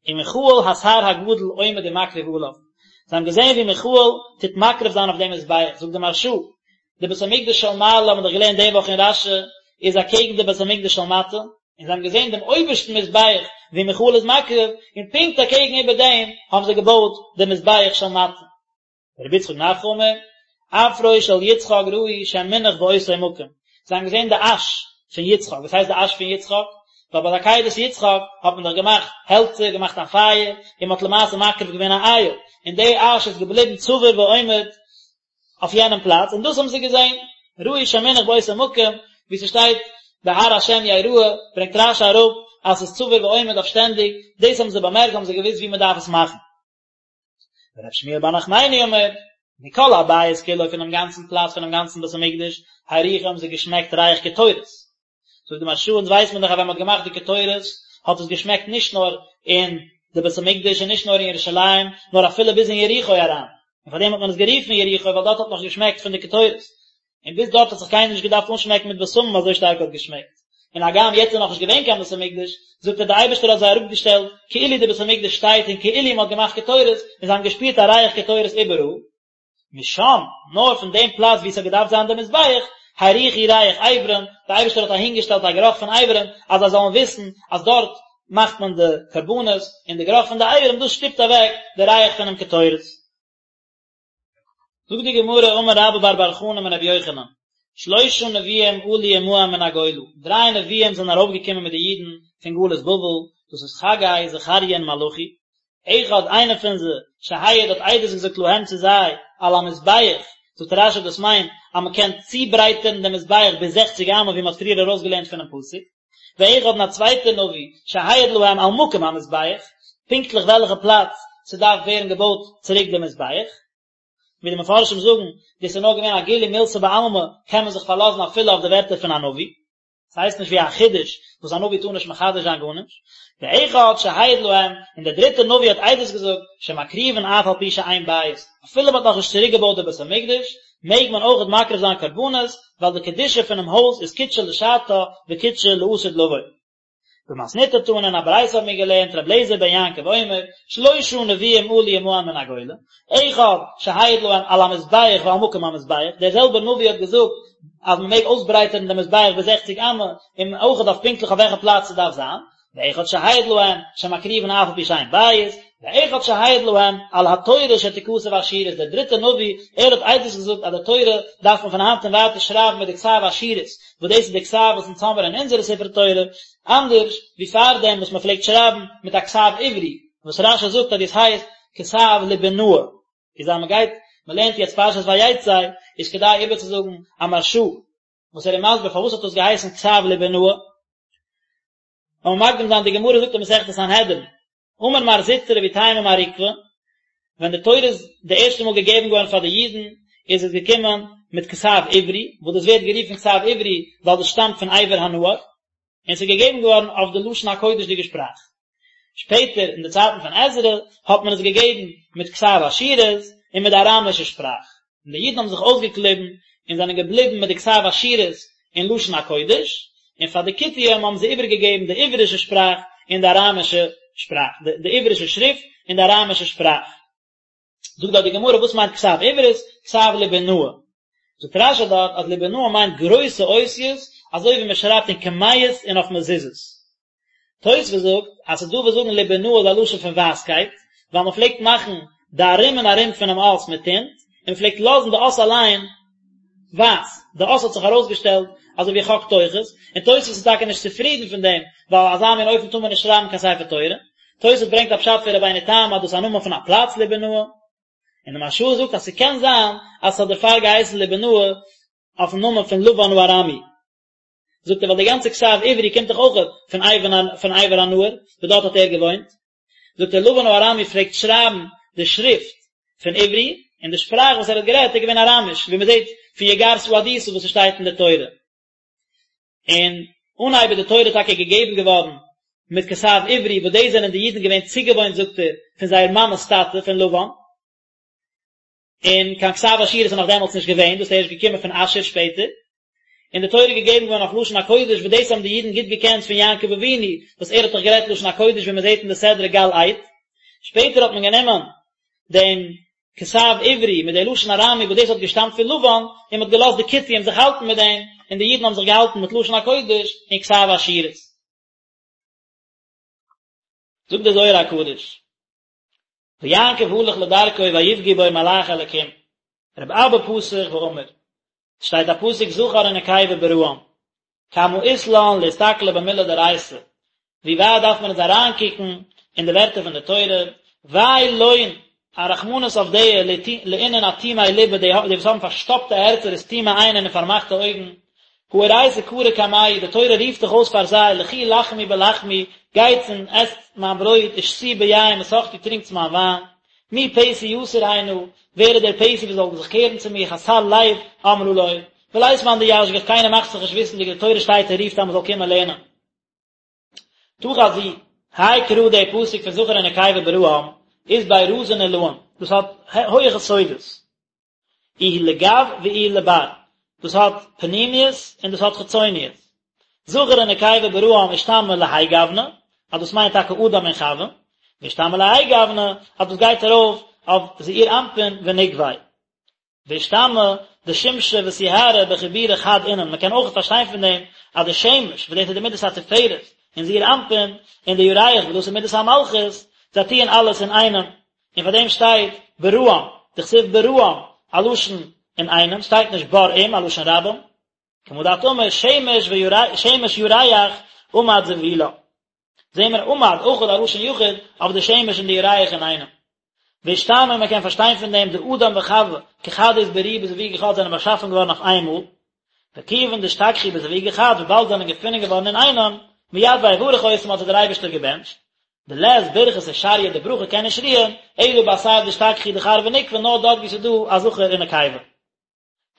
ומיכאל השר הגדול עומד ומקריב עליו, זיי האבן געזען ווי מיכאל טוט מקריב זיין אויף דעם מזבח, זאגט די מהרש"א, די בית המקדש של מעלה האבן מיר דאך געלערנט די וואך אין רש"י, איז אקעגן די בית המקדש של מטה, און זיי האבן געזען דעם אויבערשטן מזבח ווי מיכאל איז מקריב, און פונקט אקעגן איבער דעם האבן זיי געבויט די מזבח של מטה. רבי יצחק נפחא אמר, אפרו של יצחק ראו שמונח באותו מקום, זיי האבן געזען די אש פון יצחק, וואס הייסט די אש פון יצחק? ווייל ביי די עקידת יצחק האט מען דאך געמאכט העלצער, געמאכט א פייער, און מען האט למעשה מקריב געווען א איל, און די אש איז געבליבן צבור ועומד אויף יענעם פלאץ, און דאס האבן זיי געזען, ראו שמונח באותו מקום, ווי ס'שטייט בהר השם יראה, ברענגט רש"י אראפ אז ס'איז צבור ועומד אויף שטענדיג, דאס האבן זיי באמערקט, האבן זיי געוואוסט ווי מען דארף עס מאכן. ורב שמואל בר נחמני אמר, מכל הבית כולו פונעם גאנצן פלאץ פונעם גאנצן בית המקדש, הריחו האבן זיי געשמעקט ריח קטורת. זאגט די מהרש"א, אונז ווייסט מען דאך אז ווען מען האט געמאכט די קטורת, האט עס געשמעקט נישט נאר אין די בית המקדש און נישט נאר אין ירושלים, נאר אפילו ביז אין יריחו אריין. און פארדעם האט מען עס גערופן יריחו, ווייל דארט האט נאך געשמעקט פון די קטורת. און ביז דארט האט זיך קיינער נישט געדארפט אנשמעקן מיט בשמים אזוי שטארק האט געשמעקט. און הגם יעצט איז נאכנישט געווען קיין בית המקדש, זאגט ער די אייבערשטער האט זיי אראפגעשטעלט כאילו די בית המקדש שטייט און כאילו מען האט געמאכט קטורת, און זיי האבן געשפירט א ריח קטורת איבעראל. משם, נאר פון דעם פלאץ וואו עס האט געדארפט זיין דער מזבח, הריחו ריח אברים, די אייבערשטער האט אהינגעשטעלט א גערוך פון אברים, אז זיי זאלן וויסן אז דארט מאכט מען די קרבנות, און די גערוך פון די אברים דאס שטופט אוועק די ריח פונעם קטורת. זאגט די גמרא אמר רבה בר בר חנה אמר רבי יוחנן, שלשה נביאים עלו עמהם מן הגולה, דריי נביאים זענען ארויפגעקומען מיט די אידן פון גלות בבל, דאס איז חגי, זכריה און מלאכי, אחד איינער פון זיי, שהעיד האט עדות געזאגט להם צו זיי, על המזבח, זאגט רש"י דאס מיינט אז מען קען צוברייטערן דעם מזבח ביז זעכציג אמה ווי מען האט פריער ארויסגעלערנט פונעם פסוק, ואחד און א צווייטער נביא, שהעיד להם על מקום המזבח, פונקטליך וועלכע פלאץ ס'דארף ווערן געבויט צוריק די מזבח. ווי די מפרשים זאגן, דאס איז נאר געווען א גילוי מילתא בעלמא, קען מען זיך פארלאזן אפילו אויף די ווערטער פון א נביא. ס'הייסט נישט ווי א חידוש וואס א נביא טאר נישט מחדש זיין גארנישט. ואחד שהעיד להם, און דער דריטער נביא האט עדות געזאגט, שמקריבין אף על פי שאין בית, אפילו מ'האט נאכנישט צוריקגעבויט די בית המקדש, מעג מען אויכעט מקריב זיין קרבנות, ווייל די קדושה פונעם הויז איז קדשה לשעתה וקדשה לעתיד לבוא. במתניתא תנא אין א ברייתא האבן מיר געלערנט רבי אליעזר בן יעקב אומר, שלשה נביאים עלו עמהם מן הגולה, אחד שהעיד להם על המזבח ועל מקום המזבח, דער זעלבער נביא האט געזאגט אז מען מעג אויסברייטערן דעם מזבח ביז זעכציג אמה, און אויכעט אויף פונקטליך אויף וועלכע פלאץ ס'דארף זיין, ואחד שהעיד להם שמקריבין אף על פי שאין בית, ואחד שהעיד להם על התורה שתכתב אשורית, דער דריטער נביא, ער האט עדות געזאגט אז די תורה דארף מען פון היינט און ווייטער שרייבן מיט די כתב אשורית, וואס דאס איז די כתב וואס אונז האמיר אין אונזערע ספרי תורה, אנדערש ווי פארדעם וואס מען פלעגט שרייבן מיט א כתב עברי, וואס רש"י זאגט אז דאס הייסט כתב ליבונאי. איז אז מען גייט, מען לערנט יעצט פרשת ויצא, איז כדאי איבערצוזאגן א מהרש"א, וואס ער איז מסביר פארוואס האט דאס געהייסן כתב ליבונאי. לאמיר מקדים זיין, די גמרא זאגט אין מסכת סנהדרין, אמר מר זוטרא ואיתימא מר עוקבא, ווען די תורה איז די ערשטע מאל געגעבן געווארן פאר די אידן, איז עס געקומען מיט כתב עברי, וואס דאס ווערט גערופן כתב עברי ווייל דאס שטאמט פון עבר הנהר, און עס איז געגעבן געווארן אויף די לשון הקודש'דיגע שפראך. שפעטער אין די צייטן פון עזרא האט מען עס געגעבן מיט כתב אשורית און מיט די אראמישע שפראך, און די אידן האבן זיך אויסגעקליבן און זענען געבליבן מיט די כתב אשורית און לשון הקודש, און פאר די כותים האבן זיי איבערגעגעבן די עברישע שפראך און די אראמישע שפראך, די עברישע שריפט און די אראמישע שפראך. זאגט דארט די גמרא וואס מיינט כתב עברית? כתב ליבונאי. זאגט רש"י דארט אז ליבונאי מיינט גרויסע אותיות אזוי ווי מען שרייבט אין קמיעות און אויף מזוזות. תוספות זאגט אז ס'איז דא וואס זאגן ליבונאי איז א לשון פון ווייסקייט, ווייל מען פלעגט מאכן די ארום און ארום פונעם אות מיט טינט, און מען פלעגט לאזן די אות אליין. ווייס, די אות האט זיך ארויסגעשטעלט אזוי ווי חק תוכות, און תוספות איז טאקע נישט צופרידן פון דעם, ווייל אזא מין אופן טאר מען נישט שרייבן קיין ספר תורה. תוספות ברענגט א פשט פון רבינו תם אז דאס איז א נאמען פון א פלאץ ליבונאה, און די מהרש"א זאגט אז ס'קען זיין אז ס'האט דערפאר געהייסן ליבונאה אויפן נאמען פון לבן הארמי. זאגט ער ווייל די גאנצע כתב עברי קומט דאך אויך פון פון עבר הנהר, וואס דארט האט ער געוואוינט. זאגט ער לבן הארמי פלעגט שרייבן די שריפט פון עברי, און די שפראך וואס ער האט גערעדט איז געווען אראמיש, ווי מען זעט פון יגר שהדותא וואס עס שטייט אין די תורה. און אנהייב איז די תורה טאקע געגעבן געווארן מיט כתב עברי, וואס דאס זענען די אידן געווען צוגעוואוינט זאגט ער, פון זייער מאמע'ס טאטע פון לבן. און קיין כתב אשורית איז נאך דעמאלטס נישט געווען, דאס איז ערשט געקומען פון אשור שפעטער, און די תורה איז געגעבן געווארן אויף לשון הקודש, וואס דאס האבן די אידן גוט געקענט פון יעקב אבינו, וואס ער האט דאך גערעדט לשון הקודש ווי מען זעט אין די סדרה גל עד. שפעטער האט מען גענומען דעם כתב עברי מיט די לשון ארמי וואס דאס האט געשטאמט פון לבן, און מען האט געלאזט די כותים זיך האלטן מיט דעם, און די אידן האבן זיך געהאלטן מיט לשון הקודש און כתב אשורית. זאגט דער זוהר הקדוש. ויעקב הלך לדרכו ויפגעו בו מלאכי אלקים, רבי אבא פתח ואמר, שטייט א פסוק זכר ונקבה בראם, כמה אית לן לאסתכלא במילי דאורייתא, ווי ווייט דארף מען אונז אריינקוקן אין די ווערטער פון די תורה, וויי לון, א רחמנות אויף די לאינון אטימי ליבא, די וואס האבן פארשטאפטע הערצער וסתימי עיינין און פארמאכטע אויגן, הא אורייתא קרא קמייהו, די תורה רופט דאך אויס פאר זיי, לכו לחמו בלחמי, גייטס און עסטס מיין ברויט, ושתו ביין מסכתי, טרינקטס מיין וויין. מי פתי יסור הנה, ווער איז דער פתי וואס זאל זיך קערן צו מיר, חסר לב אמרה לו, ולית מאן דישגח, קיינער מאכט זיך נישט וויסנדיג, די תורה שטייט און רופט אז מען זאל קומען לערנען. תא חזי, האי קרא דער פסוק פון זכר ונקבה בראם, אית ביה רזין עילאין, דאס האט הויעכע סודות. איהו לגו ואיהו לבר, דאס האט פנימיות און דאס האט חיצוניות. זכר ונקבה בראם אשתמע להאי גוונא, אז דאס מיינט טאקע אדם און חוה, ואשתמע להאי גוונא, אז דאס גייט ארויף אויף זעיר אנפין ונוקביה. ואשתמע דשמשא וסיהרא בחיבורא חד אינון, מען קען אויך פארשטיין פון דעם אז די שמש, וואס דאס איז די מידת התפארת, אין זעיר אנפין, און די ירח, וואס דאס איז מידת המלכות, זיי טוען אלעס אינאיינעם, און פאר דעם שטייט בראם, דכתיב בראם, א לשון אינאיינעם, שטייט נישט בראים, א לשון רבים, כמה דאת אמר שמש וירח, שמש ירח עמד זבולה. זעהן מיר עמד אויך א לשון יחיד אויף די שמש און די ירח אינאיינעם. ואשתמע מען קען פארשטיין פון דעם דאדם וחוה כחד אתבריאו בזווגא חד זענען באשאפן געווארן אויף איינמאל, וכיוון דאשתכחו בזווגא חד וויבאלד זענען געפונען געווארן אינאיינעם, מיד ויברך אותם האט זיי דער אייבערשטער געבענטשט, דלית ברכתא שריא די ברכה קען נישט רוען, אלא באתר דאשתכחו דכר ונוקבא נאר דארט וואו ס'איז דא א זכר און נקבה.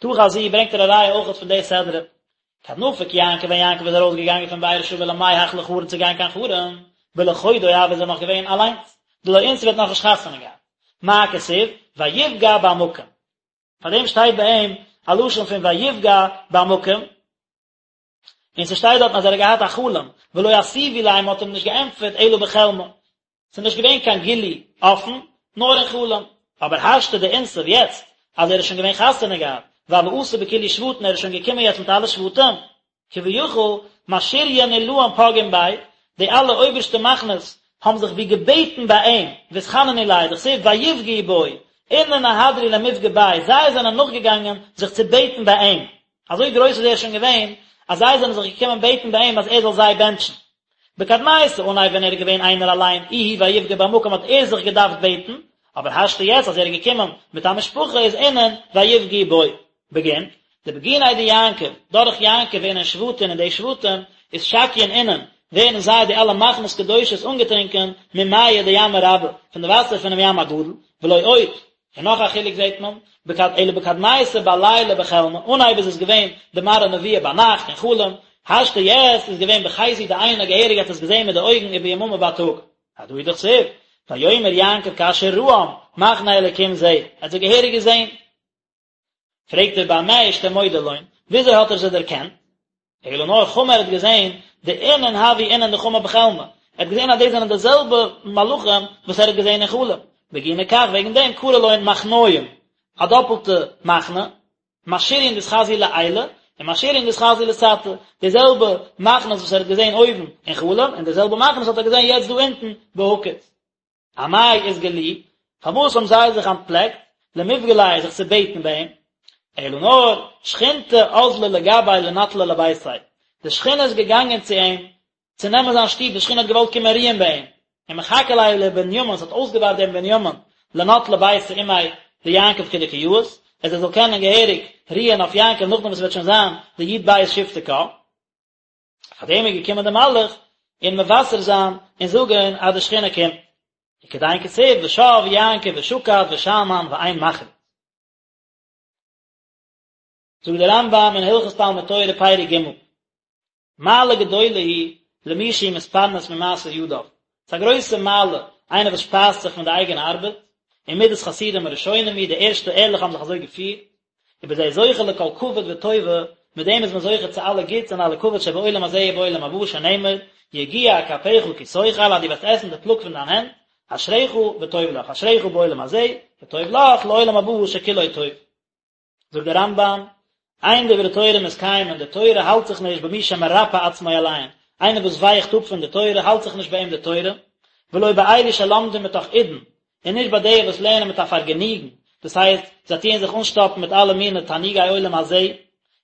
תא חזי ברענגט ער א ראיה אויכעט פון די סדרה. כד נפק יעקב ווען יעקב איז ארויס געגאנגען פון באר שבע למיהך לחרן צו גיין קיין חרן, בלחודוי הוה איז ער נאך געווען אליינס, דלא אנתיב האט נאכנישט חתונה געהאט. מה כתיב? ויפגע במקום. פאר דעם שטייט ביי אים א לשון פון ויפגע במקום, און ס'שטייט דארטן אז ער האט געהאט א חלום, ולא אתיבו ליה מ'האט אים נישט געענטפערט אלא בחלמא, ס'איז נישט געווען קיין גילוי אפן, נאר אין חלום. אבער השתא דאנתיב יעצט אז ער איז שוין געווען חתונה געהאט, והוה אתי בכולהו שבטין ער איז שוין געקומען יעצט מיט אלע שבטים, כביכול משריין עילאין פגעין ביה, די אלע אויבערשטע מחנות האבן זיך ווי געבעטן ביי אים, ואתחננו ליה, דכתיב ויפגעו בו, אינון אהדרו למפגע ביה, זיי זענען נאכגעגאנגען זיך צו בעטן ביי אים, אזוי גרויס איז ער שוין געווען, אז זיי זענען זיך געקומען בעטן ביי אים אז ער זאל זיי בענטשן. בקדמיתא אנהייב ווען ער איז געווען איינער אליין, איהו ויפגע במקום האט ער זיך געדארפט בעטן, אבער השתא יעצט אז ער איז געקומען מיט א משפחה איז אינון ויפגעו בו. בגין, דבגיניה דיעקב, דורך יעקב אינון שבטין און די שבטים, אתשקיין אינון, ווערן זיי די אלע מחנות קדושות אנגעטרינקען ממיא דימא רבא, פון די וואסער פונעם ים הגדול, ולא עוד, און נאך א חילוק זעט מען, בקד אלא בקדמיתא בליליא בחלמא, אנהייב איז עס געווען די מראה נבואה ביינאכט אין חלום, השתא יעצט איז געווען בחיזו דעינא געהעריג האט עס געזען מיט די אויגן וביממא בייטאג. הדא הוא דכתיב, ויאמר יעקב כאשר ראם, מחנה אלקים זה, ער האט זיי געהעריג געזען. פרעגט ער במה אשתמודע לון, וויאזוי האט ער זיי דערקענט? אלא נאר חמא ער האט געזען דאינון הוו אינון דחמא בחלמא, ער האט געזען אז דאס זענען די זעלבע מלאכים וואס ער האט געזען אין חלום, בגיני כך וועגן דעם קרי לון מחניים, א דאפלטע מחנה, משריין דאתחזו לעילא, און משריין דאתחזו לתתא, די זעלבע מחנות וואס ער האט געזען אויבן אין חלום, און די זעלבע מחנות האט ער געזען יעצט דא אונטן בהקיץ. אמאי אתגלו, פארוואס האבן זיי זיך אנטפלעקט, למפגע ליה זיך צו בעטן ביי אים? אלא נאר, שכינתא אזלא לגביה לנטלא לביתיה, די שכינה איז געגאנגען צו אים צו נעמען זיין שטוב, די שכינה האט געוואלט קומען רוען ביי אים, ומחכה ליה לבנימין, ס'האט אויסגעווארט דעם בנימין, לנטלא ביתיה עמיה דיעקב כדקא יאות, אז ער זאל קענען געהעריג רוען אויף יעקב נאכדעם וואס ס'וועט שוין זיין די י"ב שבטי קה. פאר דעם איז געקומען די מלאך און מבשר זיין און זאגען אז די שכינה קומט. וכדין כתיב ושב יעקב ושקט ושאנן ואין מחריד. זאגט דער רמב"ם אין הלכות תלמוד תורה פרק ג', מעלה גדולה היא למי שהוא מתפרנס ממעשה ידיו, ס'איז א גרויסע מעלה איינער וואס שפייזט זיך פון די אייגענע ארבעט, ומדת חסידים הראשונים היא, די ערשטע ערליכע האבן זיך אזוי געפירט, ובזה זוכה לכל כבוד וטובה, מיט דעם איז מען זוכה צו אלע גוטס און אלע כבוד שבעולם הזה ובעולם הבא, שנאמר, יגיע כפיך כי תאכל, אז דו וועסט עסן די פלאג פון דיין הענט, אשריך וטוב לך, אשריך בעולם הזה, וטוב לך לעולם הבא שכולו טוב. זאגט דער רמב"ם, אין דברי תורה מתקיימין, די תורה האלט זיך נישט במי שמרפה עצמו עליהן, איינער וואס ווייכט אפ פון די תורה האלט זיך נישט ביי אים די תורה, ולא באלו שלומדים מתוך עידון, און נישט ביי די וואס לערנען מיט א פארגעניגן, דאס הייסט, זיי טוען זיך אנשטאפן מיט אלע מיני תענוגי עולם הזה,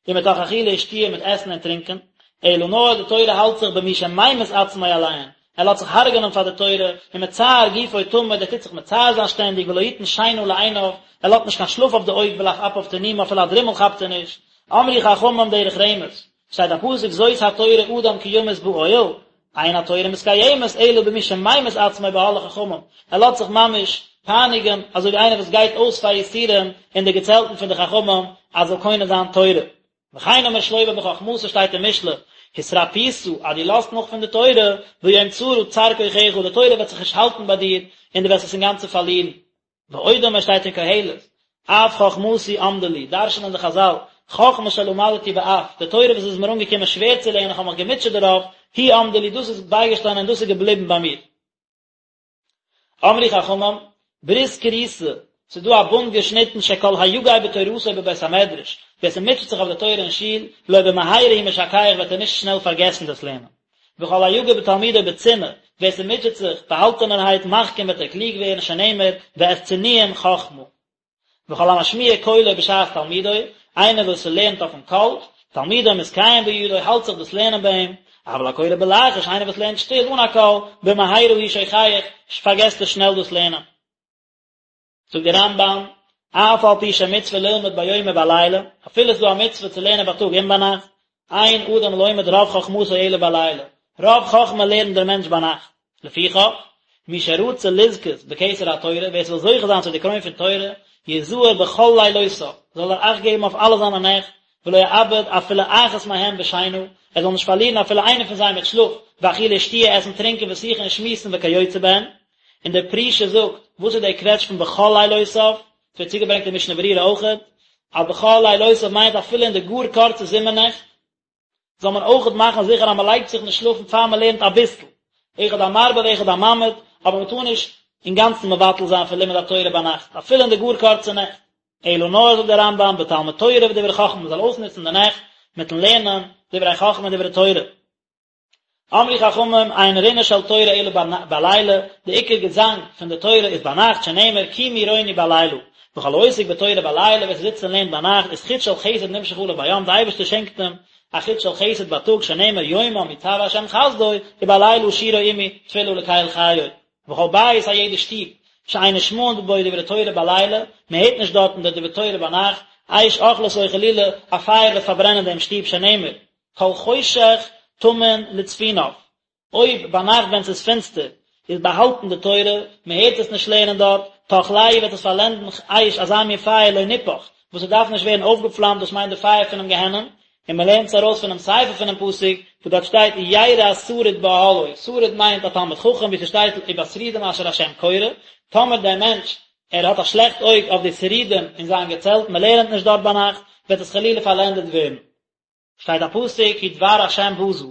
ומתוך אכילה ושתיה מיט עסן און טרינקען, אלא נאר די תורה האלט זיך במי שממית עצמו עליהן, ער לאזט זיך הרג'נען פאר די תורה, ומצער גופו תמיד, ער טוט זיך מצער זיין שטענדיג, ולא יתן שינה לעיניו, ער לאזט נישט קיין שלאף אויף די אויג ולאף אפיו תנומה, אפילו א דרימל כאפט ער נישט. אמרו חכמים דרך רמז, שטייט א פסוק זאת התורה אדם כי ימות באוהל, אין התורה מתקיימת אלא במי שממית עצמו באהלי חכמים, ער לאזט זיך ממש פייניגען אזוי ווי איינער וואס גייט אויס פאר יסורים אין די געצעלטן פון די חכמים אז זאל קונה זיין תורה. וכן אמר שלמה בחכמתו שטייט אין משלי, התרפית אז דו לאזט נאך פון די תורה, ביום צרה צר כוחך, די תורה וועט זיך נישט האלטן ביי דיר און דו וועסט עס אינגאנצן פארלירן. ועוד אמר שטייט אין קהלת, אף חכמתי עמדה לי, דרש'נען די חזל, חכמה שלמדתי באף, די תורה וואס איז מיר אנגעקומען שווער צו לערנען, איך האב מיך געמוטשעט דערויף, היא עמדה לי, דאס איז בייגעשטאנען און דאס איז געבליבן ביי מיר. אמרו חכמים, ברית כרותה, ס'איז דא א בונד געשניטן שכל היגע בתורתו בבית המדרש, ווער ס'מוטשעט זיך אויף די תורה אין שול, לא במהרה הוא משכח וועט ער נישט שנעל פארגעסן דאס לערנען. וכל היגע בתלמודו בצנעה, ווער ס'מוטשעט זיך באהאלטענערהייט מחכים וועט ער קלוג ווערן שנאמר ואת צנועים חכמה. וכל המשמיע קולו בשעת תלמודו, איינער וואס ס'לערנט אויפן קול, תלמודו מתקיים בידו האלט זיך דאס לערנען ביי אים, אבל הקורא בלחש, איינער וואס לערנט שטיל אן א קול, במהרה הוא שוכח, פארגעסט ער שנעל דאס לערנען. זאגט דער רמב"ם, אף על פי שמצוה ללמוד ביום ובלילה, אפילו ס'איז דא א מצוה צו לערנען בייטאג און ביינאכט, אין אדם לומד רוב חכמתו אלא בלילה, רוב חכמה לערנט דער מענטש ביינאכט, לפיכך, מי שרצה לזכות בכתר התורה, ווער ס'וויל זוכה זיין צו די קרוין פון תורה, יזהר בכל לילותיו, זאל ער אכט געבן אויף אלע זיינע נעכט, ולא יאבד אפילו אחת מהם בשינה, ער זאל נישט פארלירן אפילו איינע פון זיי מיט שלאף, ואכילה ושתיה, עסן טרינקען ושיחה און שמועסן וכיוצא בהן. און דער פרישה זאגט, וואס איז דער קוועטש פון בכל לילותיו? ס'ווערט צוגעברענגט אין משנה ברורה אויכעט, אז בכל לילותיו מיינט אפילו אין די גאר קורצע זומער נעכט, זאל מען אויכעט מאכן זיכער אז מען לייגט זיך נישט שלאפן פאר מען לערנט אביסל, אחד המרבה ואחד הממעיט, אבער מען טאר נישט אינגאנצן מבטל זיין פון לימוד התורה ביינאכט, אפילו אין די גאר קורצע נעכט. אלא נאר זאגט דער רמב"ם בתלמוד תורה ודברי חכמה מען זאל אויסנוצן די נעכט מיטן לערנען דברי חכמה און דברי תורה. אמרו חכמים אין רינה של תורה אלא בלילה, די עיקר געזאנג פון די תורה איז ביינאכט שנאמר קומי רוני בלילה, וכל העוסק בתורה בלילה ווער ס'זיצט און לערנט ביינאכט איז חוט של חסד נמשך עליו ביום, די אייבערשטער שענקט אים א חוט של חסד בייטאג שנאמר יומם יצוה השם חסדו ובלילה שירו עמי תפלה לקל חיי. וכל בית א יעדע שטוב שאין נשמעין בו דברי תורה בלילה, מען הערט נישט דארטן די דברי תורה ביינאכט, אש אוכלתו חלילה א פייער וועט פארברענען דעם שטוב שנאמר כל חושך טמון לצפוניו, אויב ביינאכט ווען ס'איז פינסטער איז באהאלטן די תורה, מען הערט עס נישט לערנען דארט, תאכלהו וועט עס פארלענדן אש אזא מין פייער לא נופך, וואס עס דארף נישט ווערן אויפגעפלאמט דאס מיינט די פייער פונעם גיהנום, און מען לערנט עס ארויס פונעם סיפא פונעם פסוק וואס דארט שטייט ירא שריד באהלו, שריד מיינט א תלמיד חכם ווי ס'שטייט ובשרידים אשר השם קורא, טאמער דער מענטש ער האט א שלעכט אויג אויף די שרידים אין זיין געצעלט, מען לערנט נישט דארט ביינאכט, וועט עס חלילה פארלענדעט ווערן. שטייט א פסוק כי דבר השם בזה,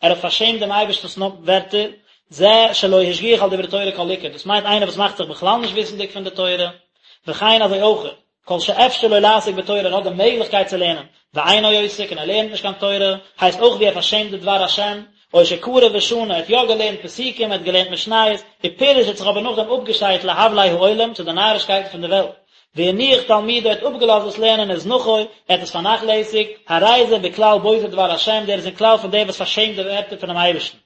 ער האט פארשעמט דעם אייבערשטנ'ס ווערטער, זה שלא השגיח על דברי תורה כל עיקר, דאס מיינט איינער וואס מאכט זיך בכלל נישט וויסנדיג פון די תורה, וכן אזוי אויך, כל שאפשר לו לעסוק בתורה, ער האט די מעגליכקייט צו לערנען, ואינו עוסק און ער לערנט נישט קיין תורה, הייסט אויך ווי ער פארשעמט די דבר השם, או שקרא ושנה, ער האט יא געלערנט פסוקים, ער האט געלערנט משניות, ופירש האט זיך אבער נאכדעם אפגעשיידט להבלי העולם, צו די נארישקייטן פון די וועלט. והניח תלמודו ער האט אפגעלאזט דאס לערנען וזנחו, ער האט עס פארנאכלעסיגט, הרי זה בכלל בוזה דבר השם, דער איז אין כלל פון דער וואס פארשעמט די ווערטער פונעם אייבערשטן.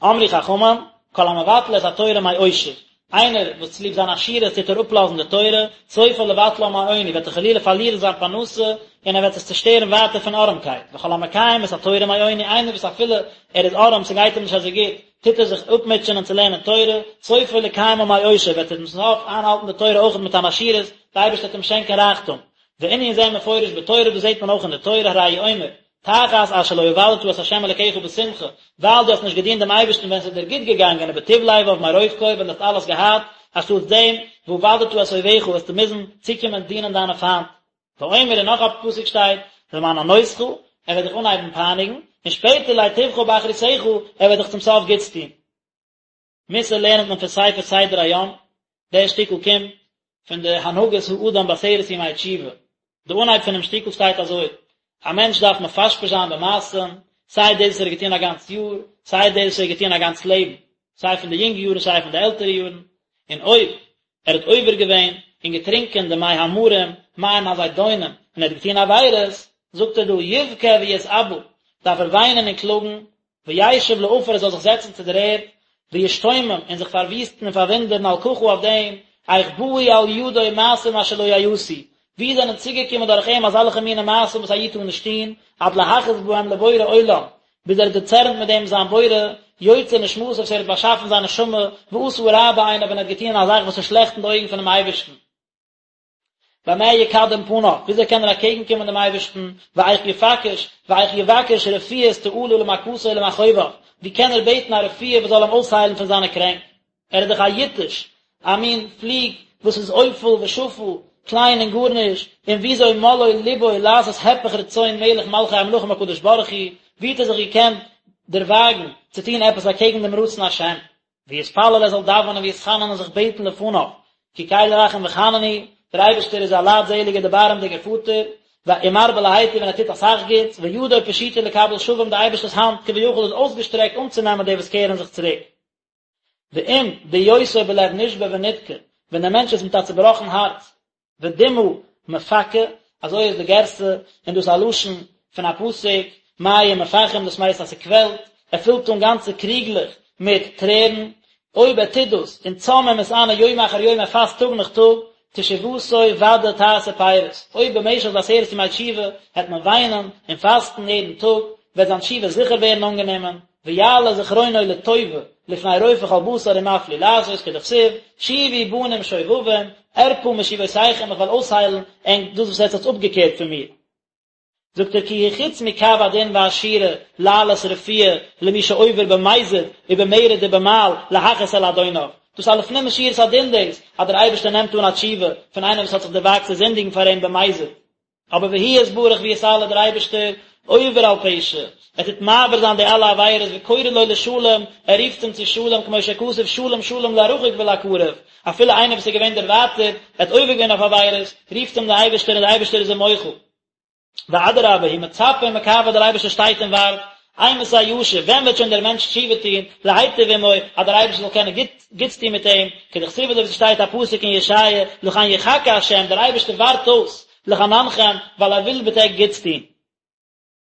אמרו חכמים, כל המבטל את התורה מעושר, איינער וואס צוליב זיין עשירות טוט ער אפלאזן די תורה, סופו לבטלה מעוני, וועט ער חלילה פארלירן זיין פרנסה, און ער וועט עס צושטערן ווייטער פון ארעמקייט, וכל המקיים את התורה מעוני, איינער וואס אפילו ער איז ארעם, ס'גייט אים נישט אזוי גוט, טוט ער זיך אפמוטשענען צו לערנען תורה, סופו לקיימה מעושר, וועט ער צום סוף איינהאלטן די תורה אויך מיט אן עשירות, די אייבערשטער וועט אים שענקען רייכטום. וענין זה מפורש בתורה, דאס זעט מען אויך אין די תורה, הרי הוא אומר, תחת אשר לא עבדת את ה' אלקיך בשמחה, ווייל דו האסט נישט געדינט דעם אייבערשטן ווען עס איז דיר גוט געגאנגען ובטוב לבב מרוב כל, ווען דו האסט אלעס געהאט, אנשטאטס דעם, ועבדת את אויביך, וועסטו מוזן צוקומען דינען דיינע פיינט. ואומר און נאך א פסוק שטייט, למען ענותך, ער וועט דיך אנהייבן פייניגן, און שפעטער להיטיבך באחריתך, ער וועט דיך צום סוף גוטס טון. מוסר לערנט מען פון ספר סדר היום, דער שטיקל קומט פון די הנהגת האדם בעשרת ימי תשובה, די אנהייב פונעם שטיקל שטייט אזוי, א מענטש דארף מפשפש זיין במעשים, סיי דאס וואס ער האט געטון א גאנץ יאר, סיי דאס וואס ער האט געטון א גאנץ לעבן, סיי פון די יונגע יארן סיי פון די עלטערע יארן, און אויב ער האט עובר געווען און געטרינקען די מי המרים, מים הזידונים, און ער האט געטון עבירות, זאגט ער דא, יבכה ויתאבל, דארף ער וויינען און קלאגן, וישב לעפר ער זאל זיך זעצן צו דער ערד, וישתומם, און זיך פארוויסטן און פארוואונדערן על ככה אויף דעם, איך באו על ידו מעשים אשר לא יעשו, ווי זענען צוגעקומען דורך אים אזעלכע מיני מעשים וואס א איד טאר נישט טון, עד להכעיס בהם לבורא עולם, ביז ער האט דערצערנט מיט דעם זיין בורא, יוצר נשמתו וואס ער האט באשאפן זיין נשמה, ועשה הרע בעיניו און ער האט געטון א זאך וואס איז שלעכט אין די אויגן פונעם אייבערשטן. במה יקדם פניו, וויאזוי קען ער אקעגן קומען דעם אייבערשטן, ואיך יפקש, ואיך יבקש רפואת תעלה למכתו ולמכאוביו, ווי קען ער בעטן א רפואה וואס זאל אים אויסהיילן פון זיינע קרענק? ער איז דאך א יתוש, א מין פליג וואס איז עופל ושפל, קליין און גארנישט, און וויאזוי מלאו לבו לעשות הפך רצון מלך מלכי המלכים הקדוש ברוך הוא, ווי האט ער זיך געקענט דערוואגן צו טון עפעס אקעגן דעם רצון השם? ויתפלל ער זאל דאווענען ויתחנן און זיך בעטן לפניו, כי קל רחום וחנון הוא, דער אייבערשטער איז א לייטזעליגער דערבארעמדיגער פאטער, ומרבה להיטיב און ער טוט אסאך גוטס, וידו פשוטה לקבל שבים, די אייבערשטער'ס האנט כביכול איז אויסגעשטרעקט אנצונעמען די וואס קערן זיך צוריק. ואם בהיותו בלב נשבר ונדכה, ווען דער מענטש איז מיט א צובראכן הארץ, ודמעה מפכה, אזוי איז די גירסא, און דאס איז א לשון פון א פסוק, מים מפכים, דאס מיינט אז ס'קוועלט, ער פילט אן גאנצע קריגלעך מיט טרערן, אויב ער טוט דאס, און צם ומתענה יום אחר יום ער פאסט טאג נאך טאג, תשובתו ודאי תעשה פירות, אויב במשך די עשרת ימי תשובה העט מען וויינען און פאסטן יעדן טאג, וועט זיין תשובה זיכער ווערן אנגענומען, ויעלה זכרונו לטובה לפני רופא כל בשר ומפליא לעשות כדכתיב, שובו בנים שובבים, ארפא משובותיכם איך וועל אויסהיילן ענק דאס וואס עטס האטס אפגעקערט פון מיר. זאגט ער כי הוא חוץ מקו הדין והשורה לעלות רפואה למי שעובר במזיד ובמרד ובמעל להכעיס על אדוניו, דאס איז א לפנים משורת הדין דאס אז דער אייבערשטער נעמט אן א תשובה פון איינעם וואס האט זיך דערוואגט צו זינדיגן פאר אים במזיד, אבער והוא יתברך ויתעלה דער אייבערשטער עובר על פשע, ער טוט מעביר זיין די אלע עבירות וקורא לו לשלום, ער רופט אים צו שלום כמו שכתוב שלום שלום לרחוק ולקרוב, אפילו איינער וואס איז געווען דערווייטערט, ער האט עובר געווען אויף עבירות, רופט אים דער אייבערשטער און דער אייבערשטער איז אים מוחל. ואדרבה, הוא מצפה ומקווה דער אייבערשטער שטייט און ווארט, אימתי ישוב, ווען וועט שוין דער מענטש תשובה טון, להיטיב עמו, אז דער אייבערשטער זאל קענען גוט גוטס טון מיט אים, כדכתיב אזוי ווי ס'שטייט א פסוק אין ישעיה, לכן יחכה ה', דער אייבערשטער ווארט אויס, לחננכם, ווייל ער וויל מיט ענק גוטס טון.